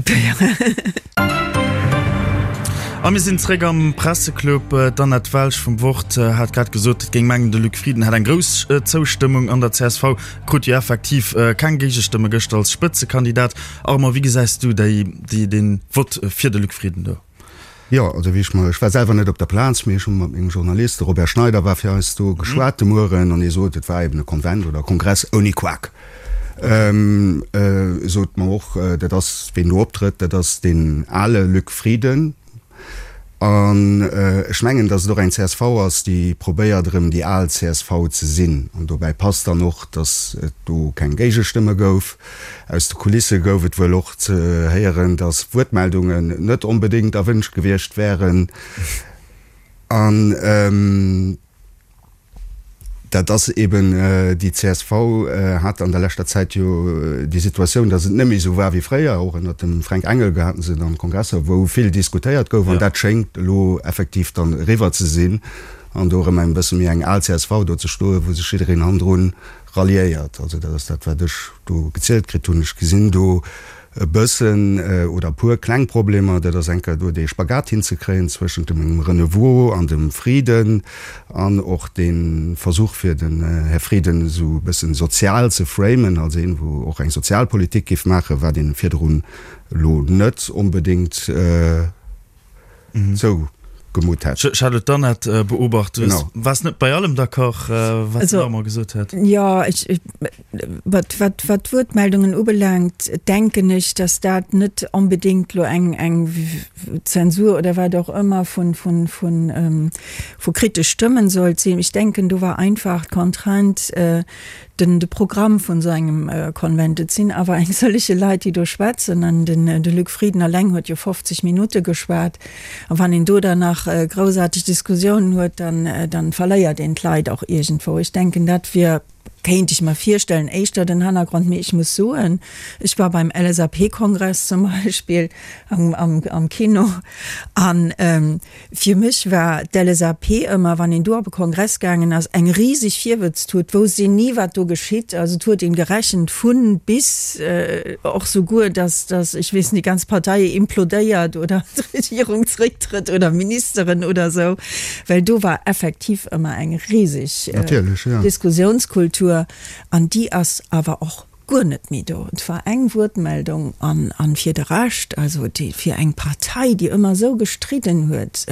A mir sinn zréck am Presseclub. D'Annette Welsch vum Wort hat grad gesot, et géing mengen, de Luc Frieden hätt eng grouss Zoustëmmung an der csv. Krut jo effektiv keng Géigestëmme gëschter als Spëtzekandidat. Armand, wéi gesäis du déi, déi, dee Vott fir de Luc Frieden do?
Jo, also wéi ech mer, ech war selwer net op der Plaz, mee ech hu mat mengem Journalist, de Robert Schneider war fir eis do, geschwat de Mueren an hie sot, et war eben e Konvent oder e Kongress ouni Quak. E sot mer och, dat ass, ween do optrëtt, dat ass deen ale Luc Frieden. An ech mengen, datt et och eng csv ass, déi probéiert erëm déi al csv ze sinn. An dobäi passt dann och, datt et do keng Géigestëmme gouf. Aus de Kulisse gouf et wuel och ze héieren, datt Wuertmeldungen net onbedéngt erwënscht gewiescht wären. An. Dat ass eben, déi csv hat an der leschter Zäit jo déi Situatioun, datt et net méi esou war wéi fréier. Och ënnert dem Fränk Engel haten se dann Kongresser, wou vill diskutéiert gouf. An dat schéngt elo effektiv dann eriwwer ze sinn an do erëm eng bësse méi eng al csv do ze stoen, wou sech jiddereen hannendrun ralliéiert. Also dat ass dat, wat ech do gezielt kritt hunn. Ech gesinn do e bëssen oder e puer kleng Problemer, dat ass eng Kéier do dee Spagat hinzekréien zwëschent dem Renouveau an dem Frieden an och dee Versuch fir den Här Frieden esou e bëssen sozial ze framen als een, wou och eng Sozialpolitik géif maachen, wat een virdrun elo net onbedéngt zougemutt hätt.
Charlotte Dannert beobacht, du waars net bei allem d'accord, wat den Armand gesot huet.
Jo, wat wat d'Wuertmeldungen ubelaangt, denken ech, datt dat net onbedéngt elo eng eng Zensur oder wat och ëmmer vun vun vun vu kritesch Stëmmen sollt sinn. Ech denken, do war einfach d'Contrainte, den de Programm vun esou engem Konvent. Et sinn awer eng sëllege Leit, déi do schwätzen, an den de Luc Frieden alleng huet jo 50 Minutte geschwat. A wann een do dann nach groussaarteg Diskussiounen huet, dann dann verléiert een d'Leit och iergendwou. Ech denken, dat wier, kéint ech mer virstellen, éischter den Hannergrond. Mee ech muss soen, ech war beim LSAP-Kongress zum Beispill am am am Kino an Fir mech war d'LSAP ëmmer, wann een do op e Kongress gaangen ass, eng riseg Virwëtztut, wousst een ni, wat do geschitt. Also et huet een gerechent vun bis, och souguer, dass, dass, ech weess net, déi ganz Partei implodéiert oder d'Regierung zrécktrëtt oder Ministeren oder esou, well do war effektiv ëmmer eng riseg Diskussiounskultur an déi ass awer och guer net méi do. Et war eng Wuertmeldung an an fir de Rescht, also déi fir eng Partei, déi ëmmer esou gestridden huet,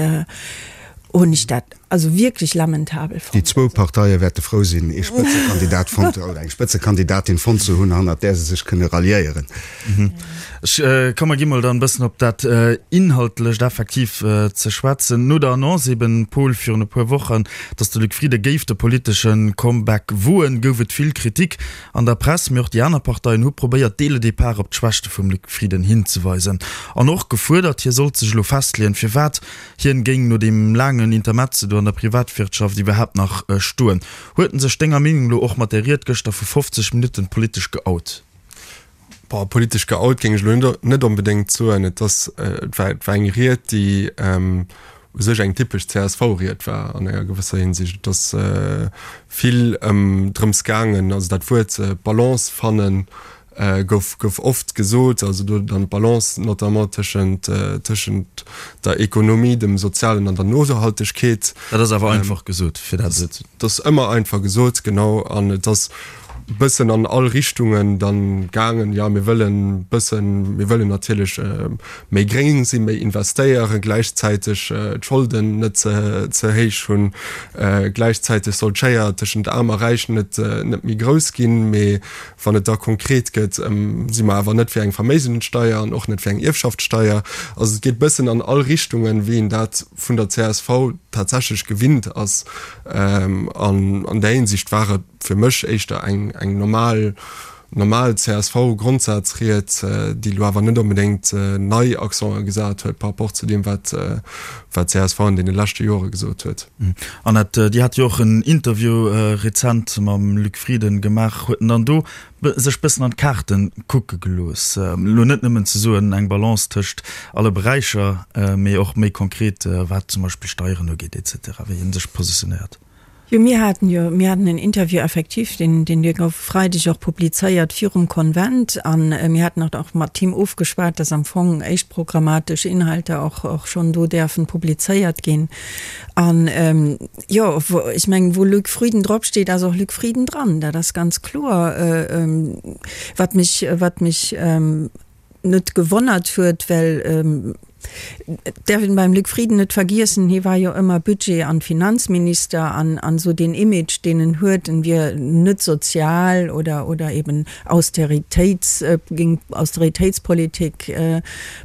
hunn ech dat also wierklech lamentabel
fonnt. Déi zwou Parteie wäerte frou sinn, ee Spëtzekandidat fonnt oder eng Spëtzekandidatin fonnt ze hunn, hannert där se sech kënne ralliéieren.
Ech komm, mer gi mol dann e bëssen op dat Inhaltlecht effektiv ze schwätzen. No der Annonce eben, Paul, virun e puer Wochen, datt de Luc Frieden géif de politesche Comeback woen, gouf et vill Kritik. An der Press, mee och déi aner Parteien hu probéiert dès le départ op d'Schwächte vum Luc Frieden hinzeweisen an och gefuerdert, hie sollt sech elo festleeën, firwat hien géing no deem laangen Intermezzo do an. an der Privatwirtschaft iwwerhaapt nach stoen. Huet en sech denger Meenung no och mat där Ried gëschter vu 50 Minutten politesch geout?
Boah, politesch geout géing ech elo net onbedéngt soen. Et ass, et war, et war eng Ried, déi u sech eng typesch CSV-Ried war an enger gewësser Hinsicht. Et ass vill ëm drëms gaangen, also dat Wuert Balance fannen gouf, gouf oft gesot, also do dann d'Balance notamment tëschent, tëschent der Ekonomie, dem Sozialen an der Nohaltegkeet.
Dat ass awer einfach gesot, fir dat
esou ze. Dat ass ëmmer einfach gesot, genau. An et ass bëssen an all Richtungen dann gaangen, jo mir wëllen bëssen, mir wëllen natierlech méi gréng sinn, méi investéieren, gläichzäiteg d'Scholden net ze ze héich hunn, gläichzäiteg soll d'Schéier tëschent Aarm a Räich net net méi grouss ginn, mee wann et da konkret gëtt, si mer awer net fir eng Verméigenssteier an och net fir eng Ierfschaftssteier. Also et geet bëssen an all Richtungen, wéi een dat vun der csv tatsächlech gewinnt ass. An an där Hinsicht war et fir mech éischter eng eng normal normal CSV-Grondsazried, déi elo awer net onbedéngt nei Accenten gesat huet par rapport zu deem, wat wat csv an deene leschte Jore gesot huet.
Annette, Dir hat jo och en Interview rezent mam Luc Frieden gemaach. Huet en dann do sech bëssen an d'Kaarte kucke gelooss? Elo net nëmmen ze soen, eng Balance tëscht alle Beräicher, mee och méi konkret, wat zum Beispill Steieren ugeet et cetera, wéi en sech positionéiert?
Jo, mir haten jo, mir haten en Interview effektiv, deen, deen dee gouf e Freideg och publizéiert virum Konvent. A mir haten och och mat him ofgeschwat, dass am Fong éischt programmatesch Inhalter och, och schonn do däerfen publizéiert ginn. An, jo, wou, ech mengen, wou Luc Frieden dropsteet, ass och Luc Frieden dran. Dat ass ganz kloer. Wat mech, wat mech net gewonnert huet, well et däerf een beim Luc Frieden net vergiessen, hie war jo ëmmer Budget an Finanzminister an an esou deen Image, deen en huet, en wier net sozial oder oder eben Austeritéits, géing Austeritéitspolitik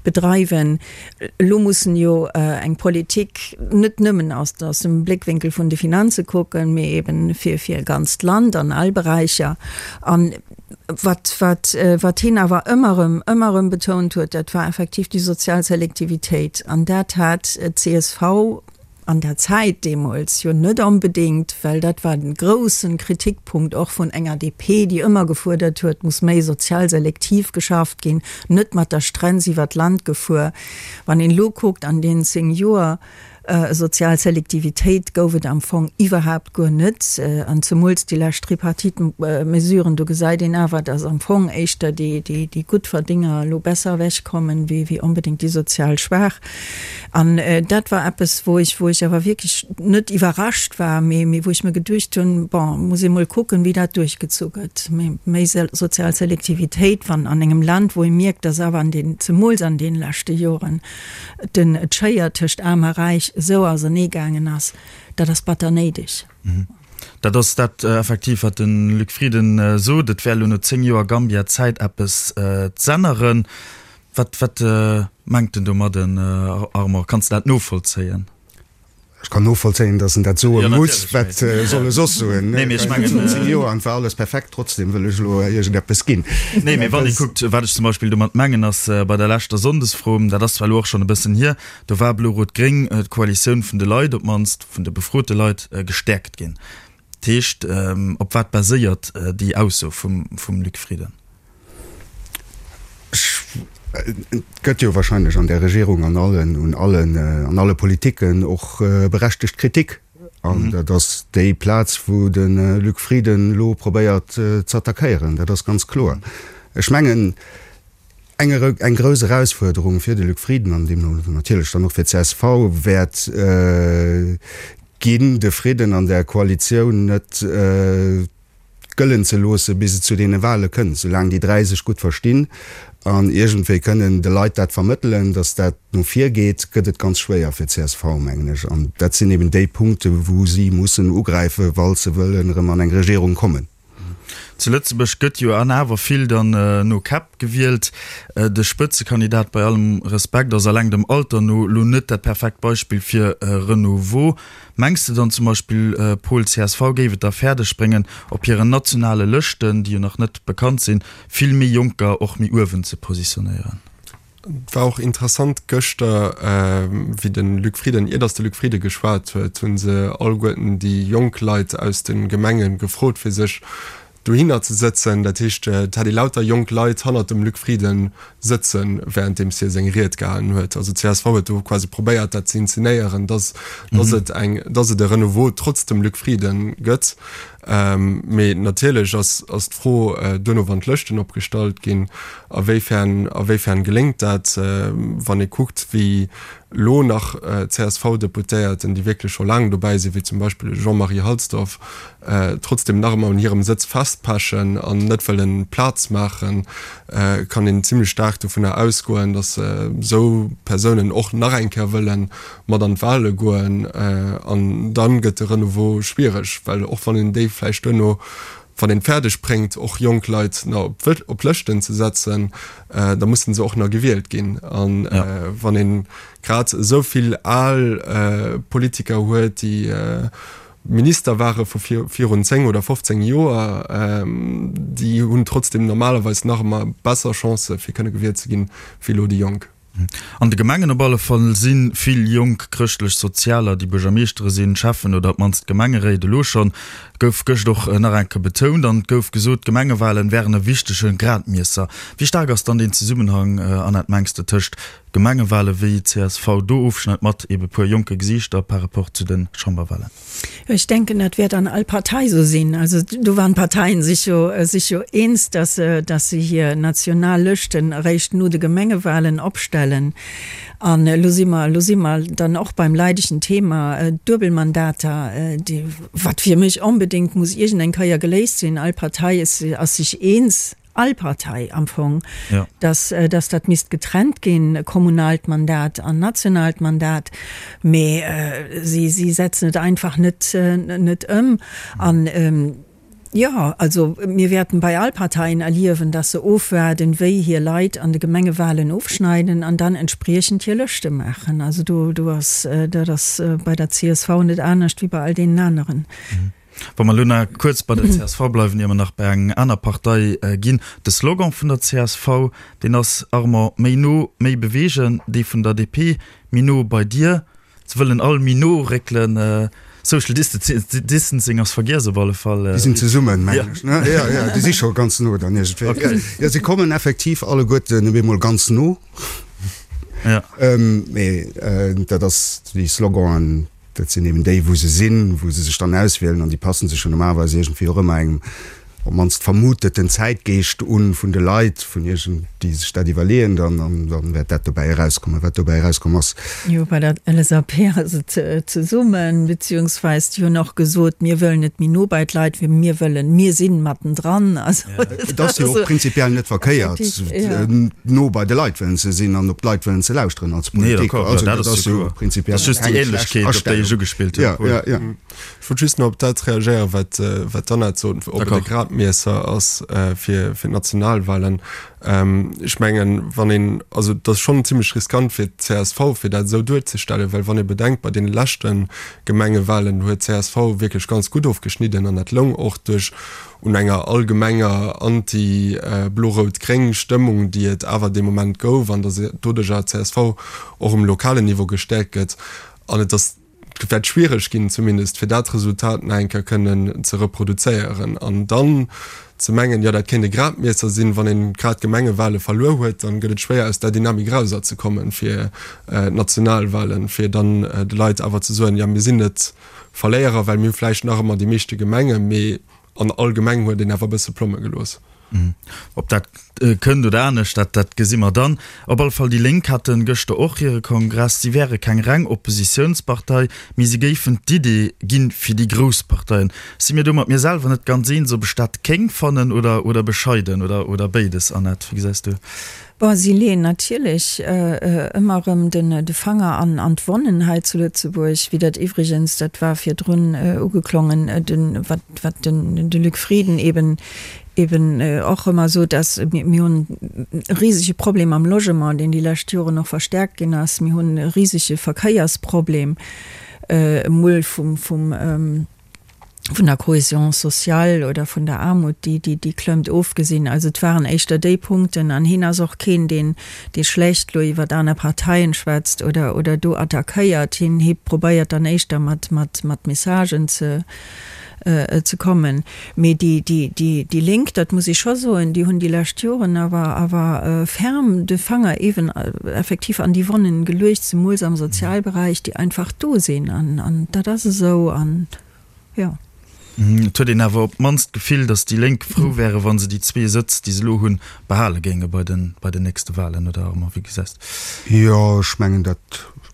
bedreiwen. Elo muss en jo eng Politik net nëmmen aus aus dem Bléckwénkel vun de Finanze kucken, mee eben fir fir e ganzt Land an all Beräicher an Wat, wat, wat hien awer ëmmer erëm, ëmmer erëm betount huet, dat war effektiv déi sozial Selektivitéit. An dat hat d'CSV an der Zäit deemools jo net onbedéngt, well dat war de groussen Kritikpunkt och vun enger DP, déi ëmmer gefuerdert huet, muss méi sozial selektiv geschafft ginn, net mat der Strenz iwwer d'Land gefuer. Wann een elo kuckt an deenen 10 Joer, Sozial Selektivitéit gouf et am Fong iwwerhaapt guer net. An zemools déi lescht Tripartite-Mesuren, do gesäit een awer, datt am Fong éischter déi Guttverdénger elo besser ewechkommen, wéi onbedéngt déi sozial Schwaach. An dat war eppes, wou ech, wou ech awer wierklech net iwwerrascht war, mee wou ech mir geduecht hunn, bon, muss ee mol kucken, wéi dat duerchgezu gëtt. Mee méi sozial Selektivitéit, wann an engem Land, wou ee mierkt, datt awer an den, zemools an deene leschte Joren, den d'Schéier tëscht Aarm a Räich esou ausernee gaangen ass, dat ass batter néideg.
Dat ass dat effektiv, wat de Luc Frieden sot. Et wär elo no 10 Joer Gambia Zäit, eppes z'änneren. Wat, wat mengt en domadden, Armand? Kanns de dat novollzéien?
Ech kann novollzéien, datt en dat soe muss. Wat soll e soss soen? Nee, mee ech mengen. Virun 10 Joer an et war alles perfekt, trotzdem wëll ech elo iergendeppes ginn.
Nee, mee wann ee kuckt, wat ech zum Beispill domat mengen, ass bei der leschter Sonndesfro, dat ass zwar elo och schonn e bëssen hier, do war Blo-Rot-Gréng, d'Koalitioun vun de Leit, op d'mannst vun de befrote Leit, gestäerkt ginn. Dat heescht, op wat baséiert déi Ausso vum Luc Frieden?
Et gëtt jo wahrscheinlech an där Regierung an allen, un allen, an alle Politiken och berechtegt Kritik. An dat ass déi Plaz, wou de Luc Frieden elo probéiert z'attackéieren. Dat ass ganz kloer. Ech mengen, eng, eng grouss Erausfuerderung fir de Luc Frieden an deemno natierlech dann och fir d'CSV wäert ginn, de Fridden an där Koalitioun net gëllen ze loosse bis et zu deene Wahle kënnt, soulaang déi 3 sech gutt verstinn an iergendwéi kënnen de Leit dat vermëttelen, datt dat no vir geet, gëtt et ganz schwéier fir csv, mengen ech. An dat sinn eben déi Punkte wou si mussen ugräifen, wa se wëllen erëm an eng Regierung kommen.
Zu Lëtzebuerg gëtt jo an awer vill dann no Käpp gewielt. De Spëtzekandidat, bei allem Respekt, ass alleng dem Alter no lo net dat perfekt Beispill fir Renouveau. Mengs de dann zum Beispill, Paul, csv géif et da fäerdeg bréngen, op hiren nationale Lëschten, déi jo nach net bekannt sinn, vill méi Jonker och méi uewen ze positionéieren?
Et war och interessant gëschter, wéi de Luc Frieden, ier datt de Luc Frieden geschwat huet, hu se alleguerten déi jonk Leit aus de Gemenge gefrot, fir sech dohinner ze sëtzen. Dat heescht, et hat ee lauter jonk Leit hannert dem Luc Frieden sëtzen, wärenddeems hie seng Ried gehalen huet. Also csv huet do quasi probéiert, dat ze inzenéieren, datt datt et eng, datt et e Renouveau trotz dem Luc Frieden gëtt. Mee natierlech ass ass d'Fro duerno, wann d'Lëschten opgestallt ginn, a wéifern a wéifern geléngt dat, wann ee kuckt, wéi elo nach CSV-Deputéierten, déi wierklech scho laang dobäi sinn, wéi zum Beispill de Jean-Marie Halsdorf, trotzdem nach ëmmer un hirem Sëtz festpechen an net wëllen Plaz maachen, kann een zimlech staark dovunner ausgoen, datt esou Persounen och nach eng Kéier wëllen mat an d'Wahle goen. An dann gëtt de Renouveau schwiereg, well och wann een déi vläicht duerno, wann een et fäerdeg bréngt, och jonk Leit nach op Lëschten ze setzen, da mussen se och nach gewielt ginn. An wann ee grad esou vill al Politiker huet, déi Minister ware vu virun 10 oder 15 Joer, déi hunn trotzdeem normalerweis nach ëmmer besser Chancë fir kënne gewielt ze ginn, wéi elo déi Jonk.
An de Gemengen op alle Fall si vill jonk Chrëschtlech-Sozialer, déi Buergermeeschtere sinn, Schäffen oder op d'mannst Gemengeréit. Elo schonn gouf gëscht och nach eng Kéier betount an et gouf gesot, d'Gemengewalen wären e wichtege Gradmiesser. Wéi staark ass dann deen Zesummenhang, Annette, mengs de, tëscht Gemengewale wéi csv do ofschneit mat ebe puer jonke Gesiichter par rapport zu de Chamberwalen?
Ech denken, dat wäert an all Partei esou sinn. Also do waren d'Parteien sech jo, sech jo eens, dass se, dass se hir national Lëschten eréischt no de Gemengewahlen opstellen. An elo si mer, elo si mer dann och beim leidegen Thema Duebelmandater, déi, wat fir mech onbedéngt muss iergendeng Kéier geléist sinn. All Partei ass sech eens. all Partei am Fong, dass, dass dat misst getrennt ginn, kommunaalt Mandat an nationaalt Mandat, mee si, si setzen et einfach net, net ëm. An, jo, also mir wäerten bei all Parteien erliewen, dass se ofwaarden, wéi hir Leit an de Gemengewahlen ofschneiden an dann entspriechend hir Lëschte maachen. Also do, do ass, dat ass bei der csv net anescht wéi bei all deenen aneren.
Wa mer elo nach kuerz bei der csv bleiwen, ier mer nach bei eng aner Partei ginn. De Slogan vun der csv, deen ass, Armand, méi no, méi beweegen. Dee vun der DP, méi no bei dir. Se wëllen all méi no réckelen. Social Distancing ass vergiess op alle Fall.
Déi sinn zesummen, mengen ech, ne? Jo, jo, déi si scho ganz no dann iergendwéi. Jo, si kommen effektiv alleguerten op eemol ganz no. Mee dat ass, déi Sloganen, Dat sinn eben déi, wou se sinn, wou se sech dann auswielen an déi passen sech jo normalerweis iergendwéi och ëmmer engem op d'mannst vermuteten Zäitgeescht un vun de Leit, vun iergend, déi sech dat iwwerleeën dann, an dann wäert dat dobäi erauskommen, wat dobäi erauskomm ass.
Jo, bei der LSAP ass et zesummen, beziehungsweis déi hunn och gesot, mir wëllen net méi no bei d'Leit, mee mir wëllen, mir sinn mattendran.
Also Et ass jo och prinzipiell net verkéiert, no bei de Leit wëllen ze sinn an op d'Leit wëllen ze lauschteren als Politik.
Also dat ass jo prinzipiell keng schlecht Astellung.
Ja, ja, ja. Ech wollt just nach op dat reagéieren, wat, wat d'Annette sot, ob et e Gradmiesser ass fir, fir d'Nationalwahlen. Ech mengen, wann een, also et ass schonn zimlech riskant fir d'CSV, fir dat esou duerzestellen, well wann ee bedenkt, bei deene leschte Gemengewahlen huet d'CSV wierklech ganz gutt ofgeschnidden an dat loung och duerch un enger allgemenger anti-blo-rout-gréng Stëmmung, déi et awer dee Moment gouf, an datt doduercher csv och um lokalen Niveau gestäerkt gëtt. An et ass, et wäert schwiereg ginn zumindest, fir dat Resultat nach eng Kéier kënnen ze reproduzéieren. An dann ze mengen, jo dat kéint e Gradmiesser sinn, wann een grad d'Gemengewale verluer huet, dann gëtt et schwéier aus där Dynamik erauserzekommen fir d'Nationalwalen, fir dann de Leit awer ze soen, jo mir sinn net Verléierer, well mir hu vläicht nach ëmmer déi meeschte Gemengen, mee an all Gemeng huet een awer e bësse Plomme gelooss.
Ob dat kënnt oder anescht, dat dat gesi mer dann. Op alle Fall, déi Lénk hate gëschter och hire Kongress. Si wäre keng reng Oppositiounspartei, mee si géifen d'Idee ginn fir déi grouss Parteien. Si mir do mat mir selwer net ganz eens, ob ech dat kéng fannen oder oder bescheiden oder oder béides. Annette, wéi gesäis du?
Bon, si leeën natierlech ëmmer erëm de Fanger an d'Wonnen hei zu Lëtzebuerg, wéi dat iwwregens, dat war virdrun ugeklongen, wat wat de Luc Frieden eben eben och ëmmer sot, dass mir hunn e risege Problem am Logement, deen déi lescht Joren och verstärkt ginn ass. Mir hunn e risege Verkéiersproblem, emol vum vum. Vun der Cohésion sociale oder vun der Aarmut, déi, déi, déi klëmmt, ofgesinn. Also et waren éischter déi Punkten. An hien ass och keen, deen, dee schlecht elo iwwert aner Parteien schwätzt oder, oder do attackéiert. Hien, hie probéiert dann éischter mat, mat, mat Messagen ze, ze kommen. Mee déi, déi, déi, déi Lénk, dat muss ech scho soen, déi hunn déi lescht Joren awer, awer ferm de Fanger eeben effektiv an déi Wonnen geluecht, zemools am Sozialberäich, déi einfach do sinn. An, an dat ass esou. An jo.
Et huet een awer op d'mannst d'Gefill, datt déi Lénk frou wäre wa se déi zwee Sëtz, déi se elo hunn, behale géinge bei den, bei den nächste Wahlen, oder Armand, wéi gesäis de?
Jo, ech mengen, dat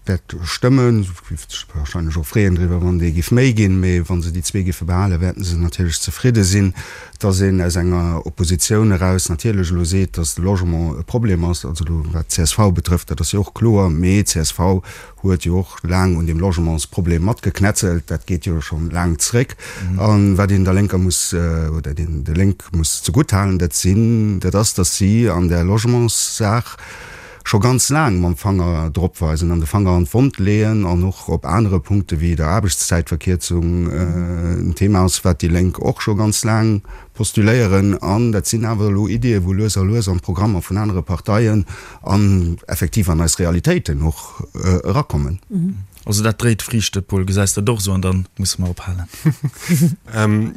wäert stëmmen. Se géife sech wahrscheinlech och freeën driwwer, wann déi géif méi ginn. Mee wa se déi zwee géife behalen, wäerten se natierlech zefridde sinn. Datt een aus enger Oppositioun eraus natierlech elo seet, datt de Logement e Problem ass, also elo wat d'CSV betrëfft, dat ass jo och kloer. Mee csv huet jo och laang un deem Logementsproblem matgeknetzelt, dat geet jo scho laang zréck. A wat een der Lénker muss, oder den de Lénk muss zegutt halen, dat sinn, dat ass, datt si an där Logementssaach scho ganz laang mam Fanger drop weisen an de Fanger an d'Wond leeën an och op anere Punkte wéi der Aarbechtszäitverkierzung en Thema ass, wat déi Lénk och scho ganz laang postuléieren. An dat sinn awer elo Iddien, wou lues a lues an d'Programmer vun anere Parteien an effektiv an eis Realitéiten och erakommen.
Also dat dréit Friichte, Paul, gesäis dat och esou? An dann musse mer ophalen.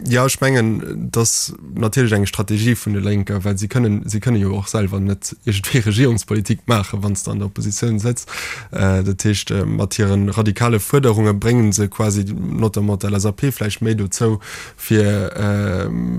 Jo, ech mengen, et ass natierlech eng Strategie vun de Lénker, well si kënnen, si kënne jo och selwer net iergendwéi Regierungspolitik maachen, wann s de an der Oppositioun sëtz. Dat heescht, mat hire radikale Fuerderunge brénge se quasi notamment d'LSAP vläicht méi dozou, fir,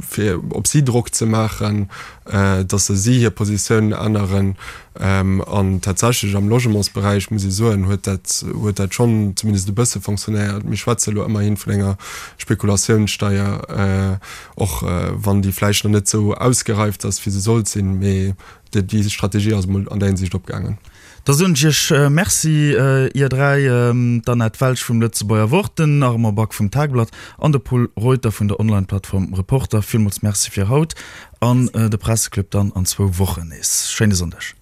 fir op si Drock ze maachen, dass se si hir Positioun änneren. An tatsächlech am Logementsberäich, muss ee soen, huet dat, huet dat schonn zumindest e bësse fonctionnéiert. Mir schwätze elo ëmmerhi vun enger Spekulatiounssteier, och wann déi vläicht nach net esou ausgereift ass, wéi se sollt sinn, mee déi Strategie ass emol an där Hinsicht opgaangen.
Da soen ech Iech Merci, Ier 3, d'Annette Welsch vum Lëtzebuerger Wort, den Armand Back vum Tageblatt an de Pol Reuter vun der Online-Plattform Reporter. Villmools Merci fir haut an de Presseclub dann an zwou Wochen nees. Schéine Sonndeg.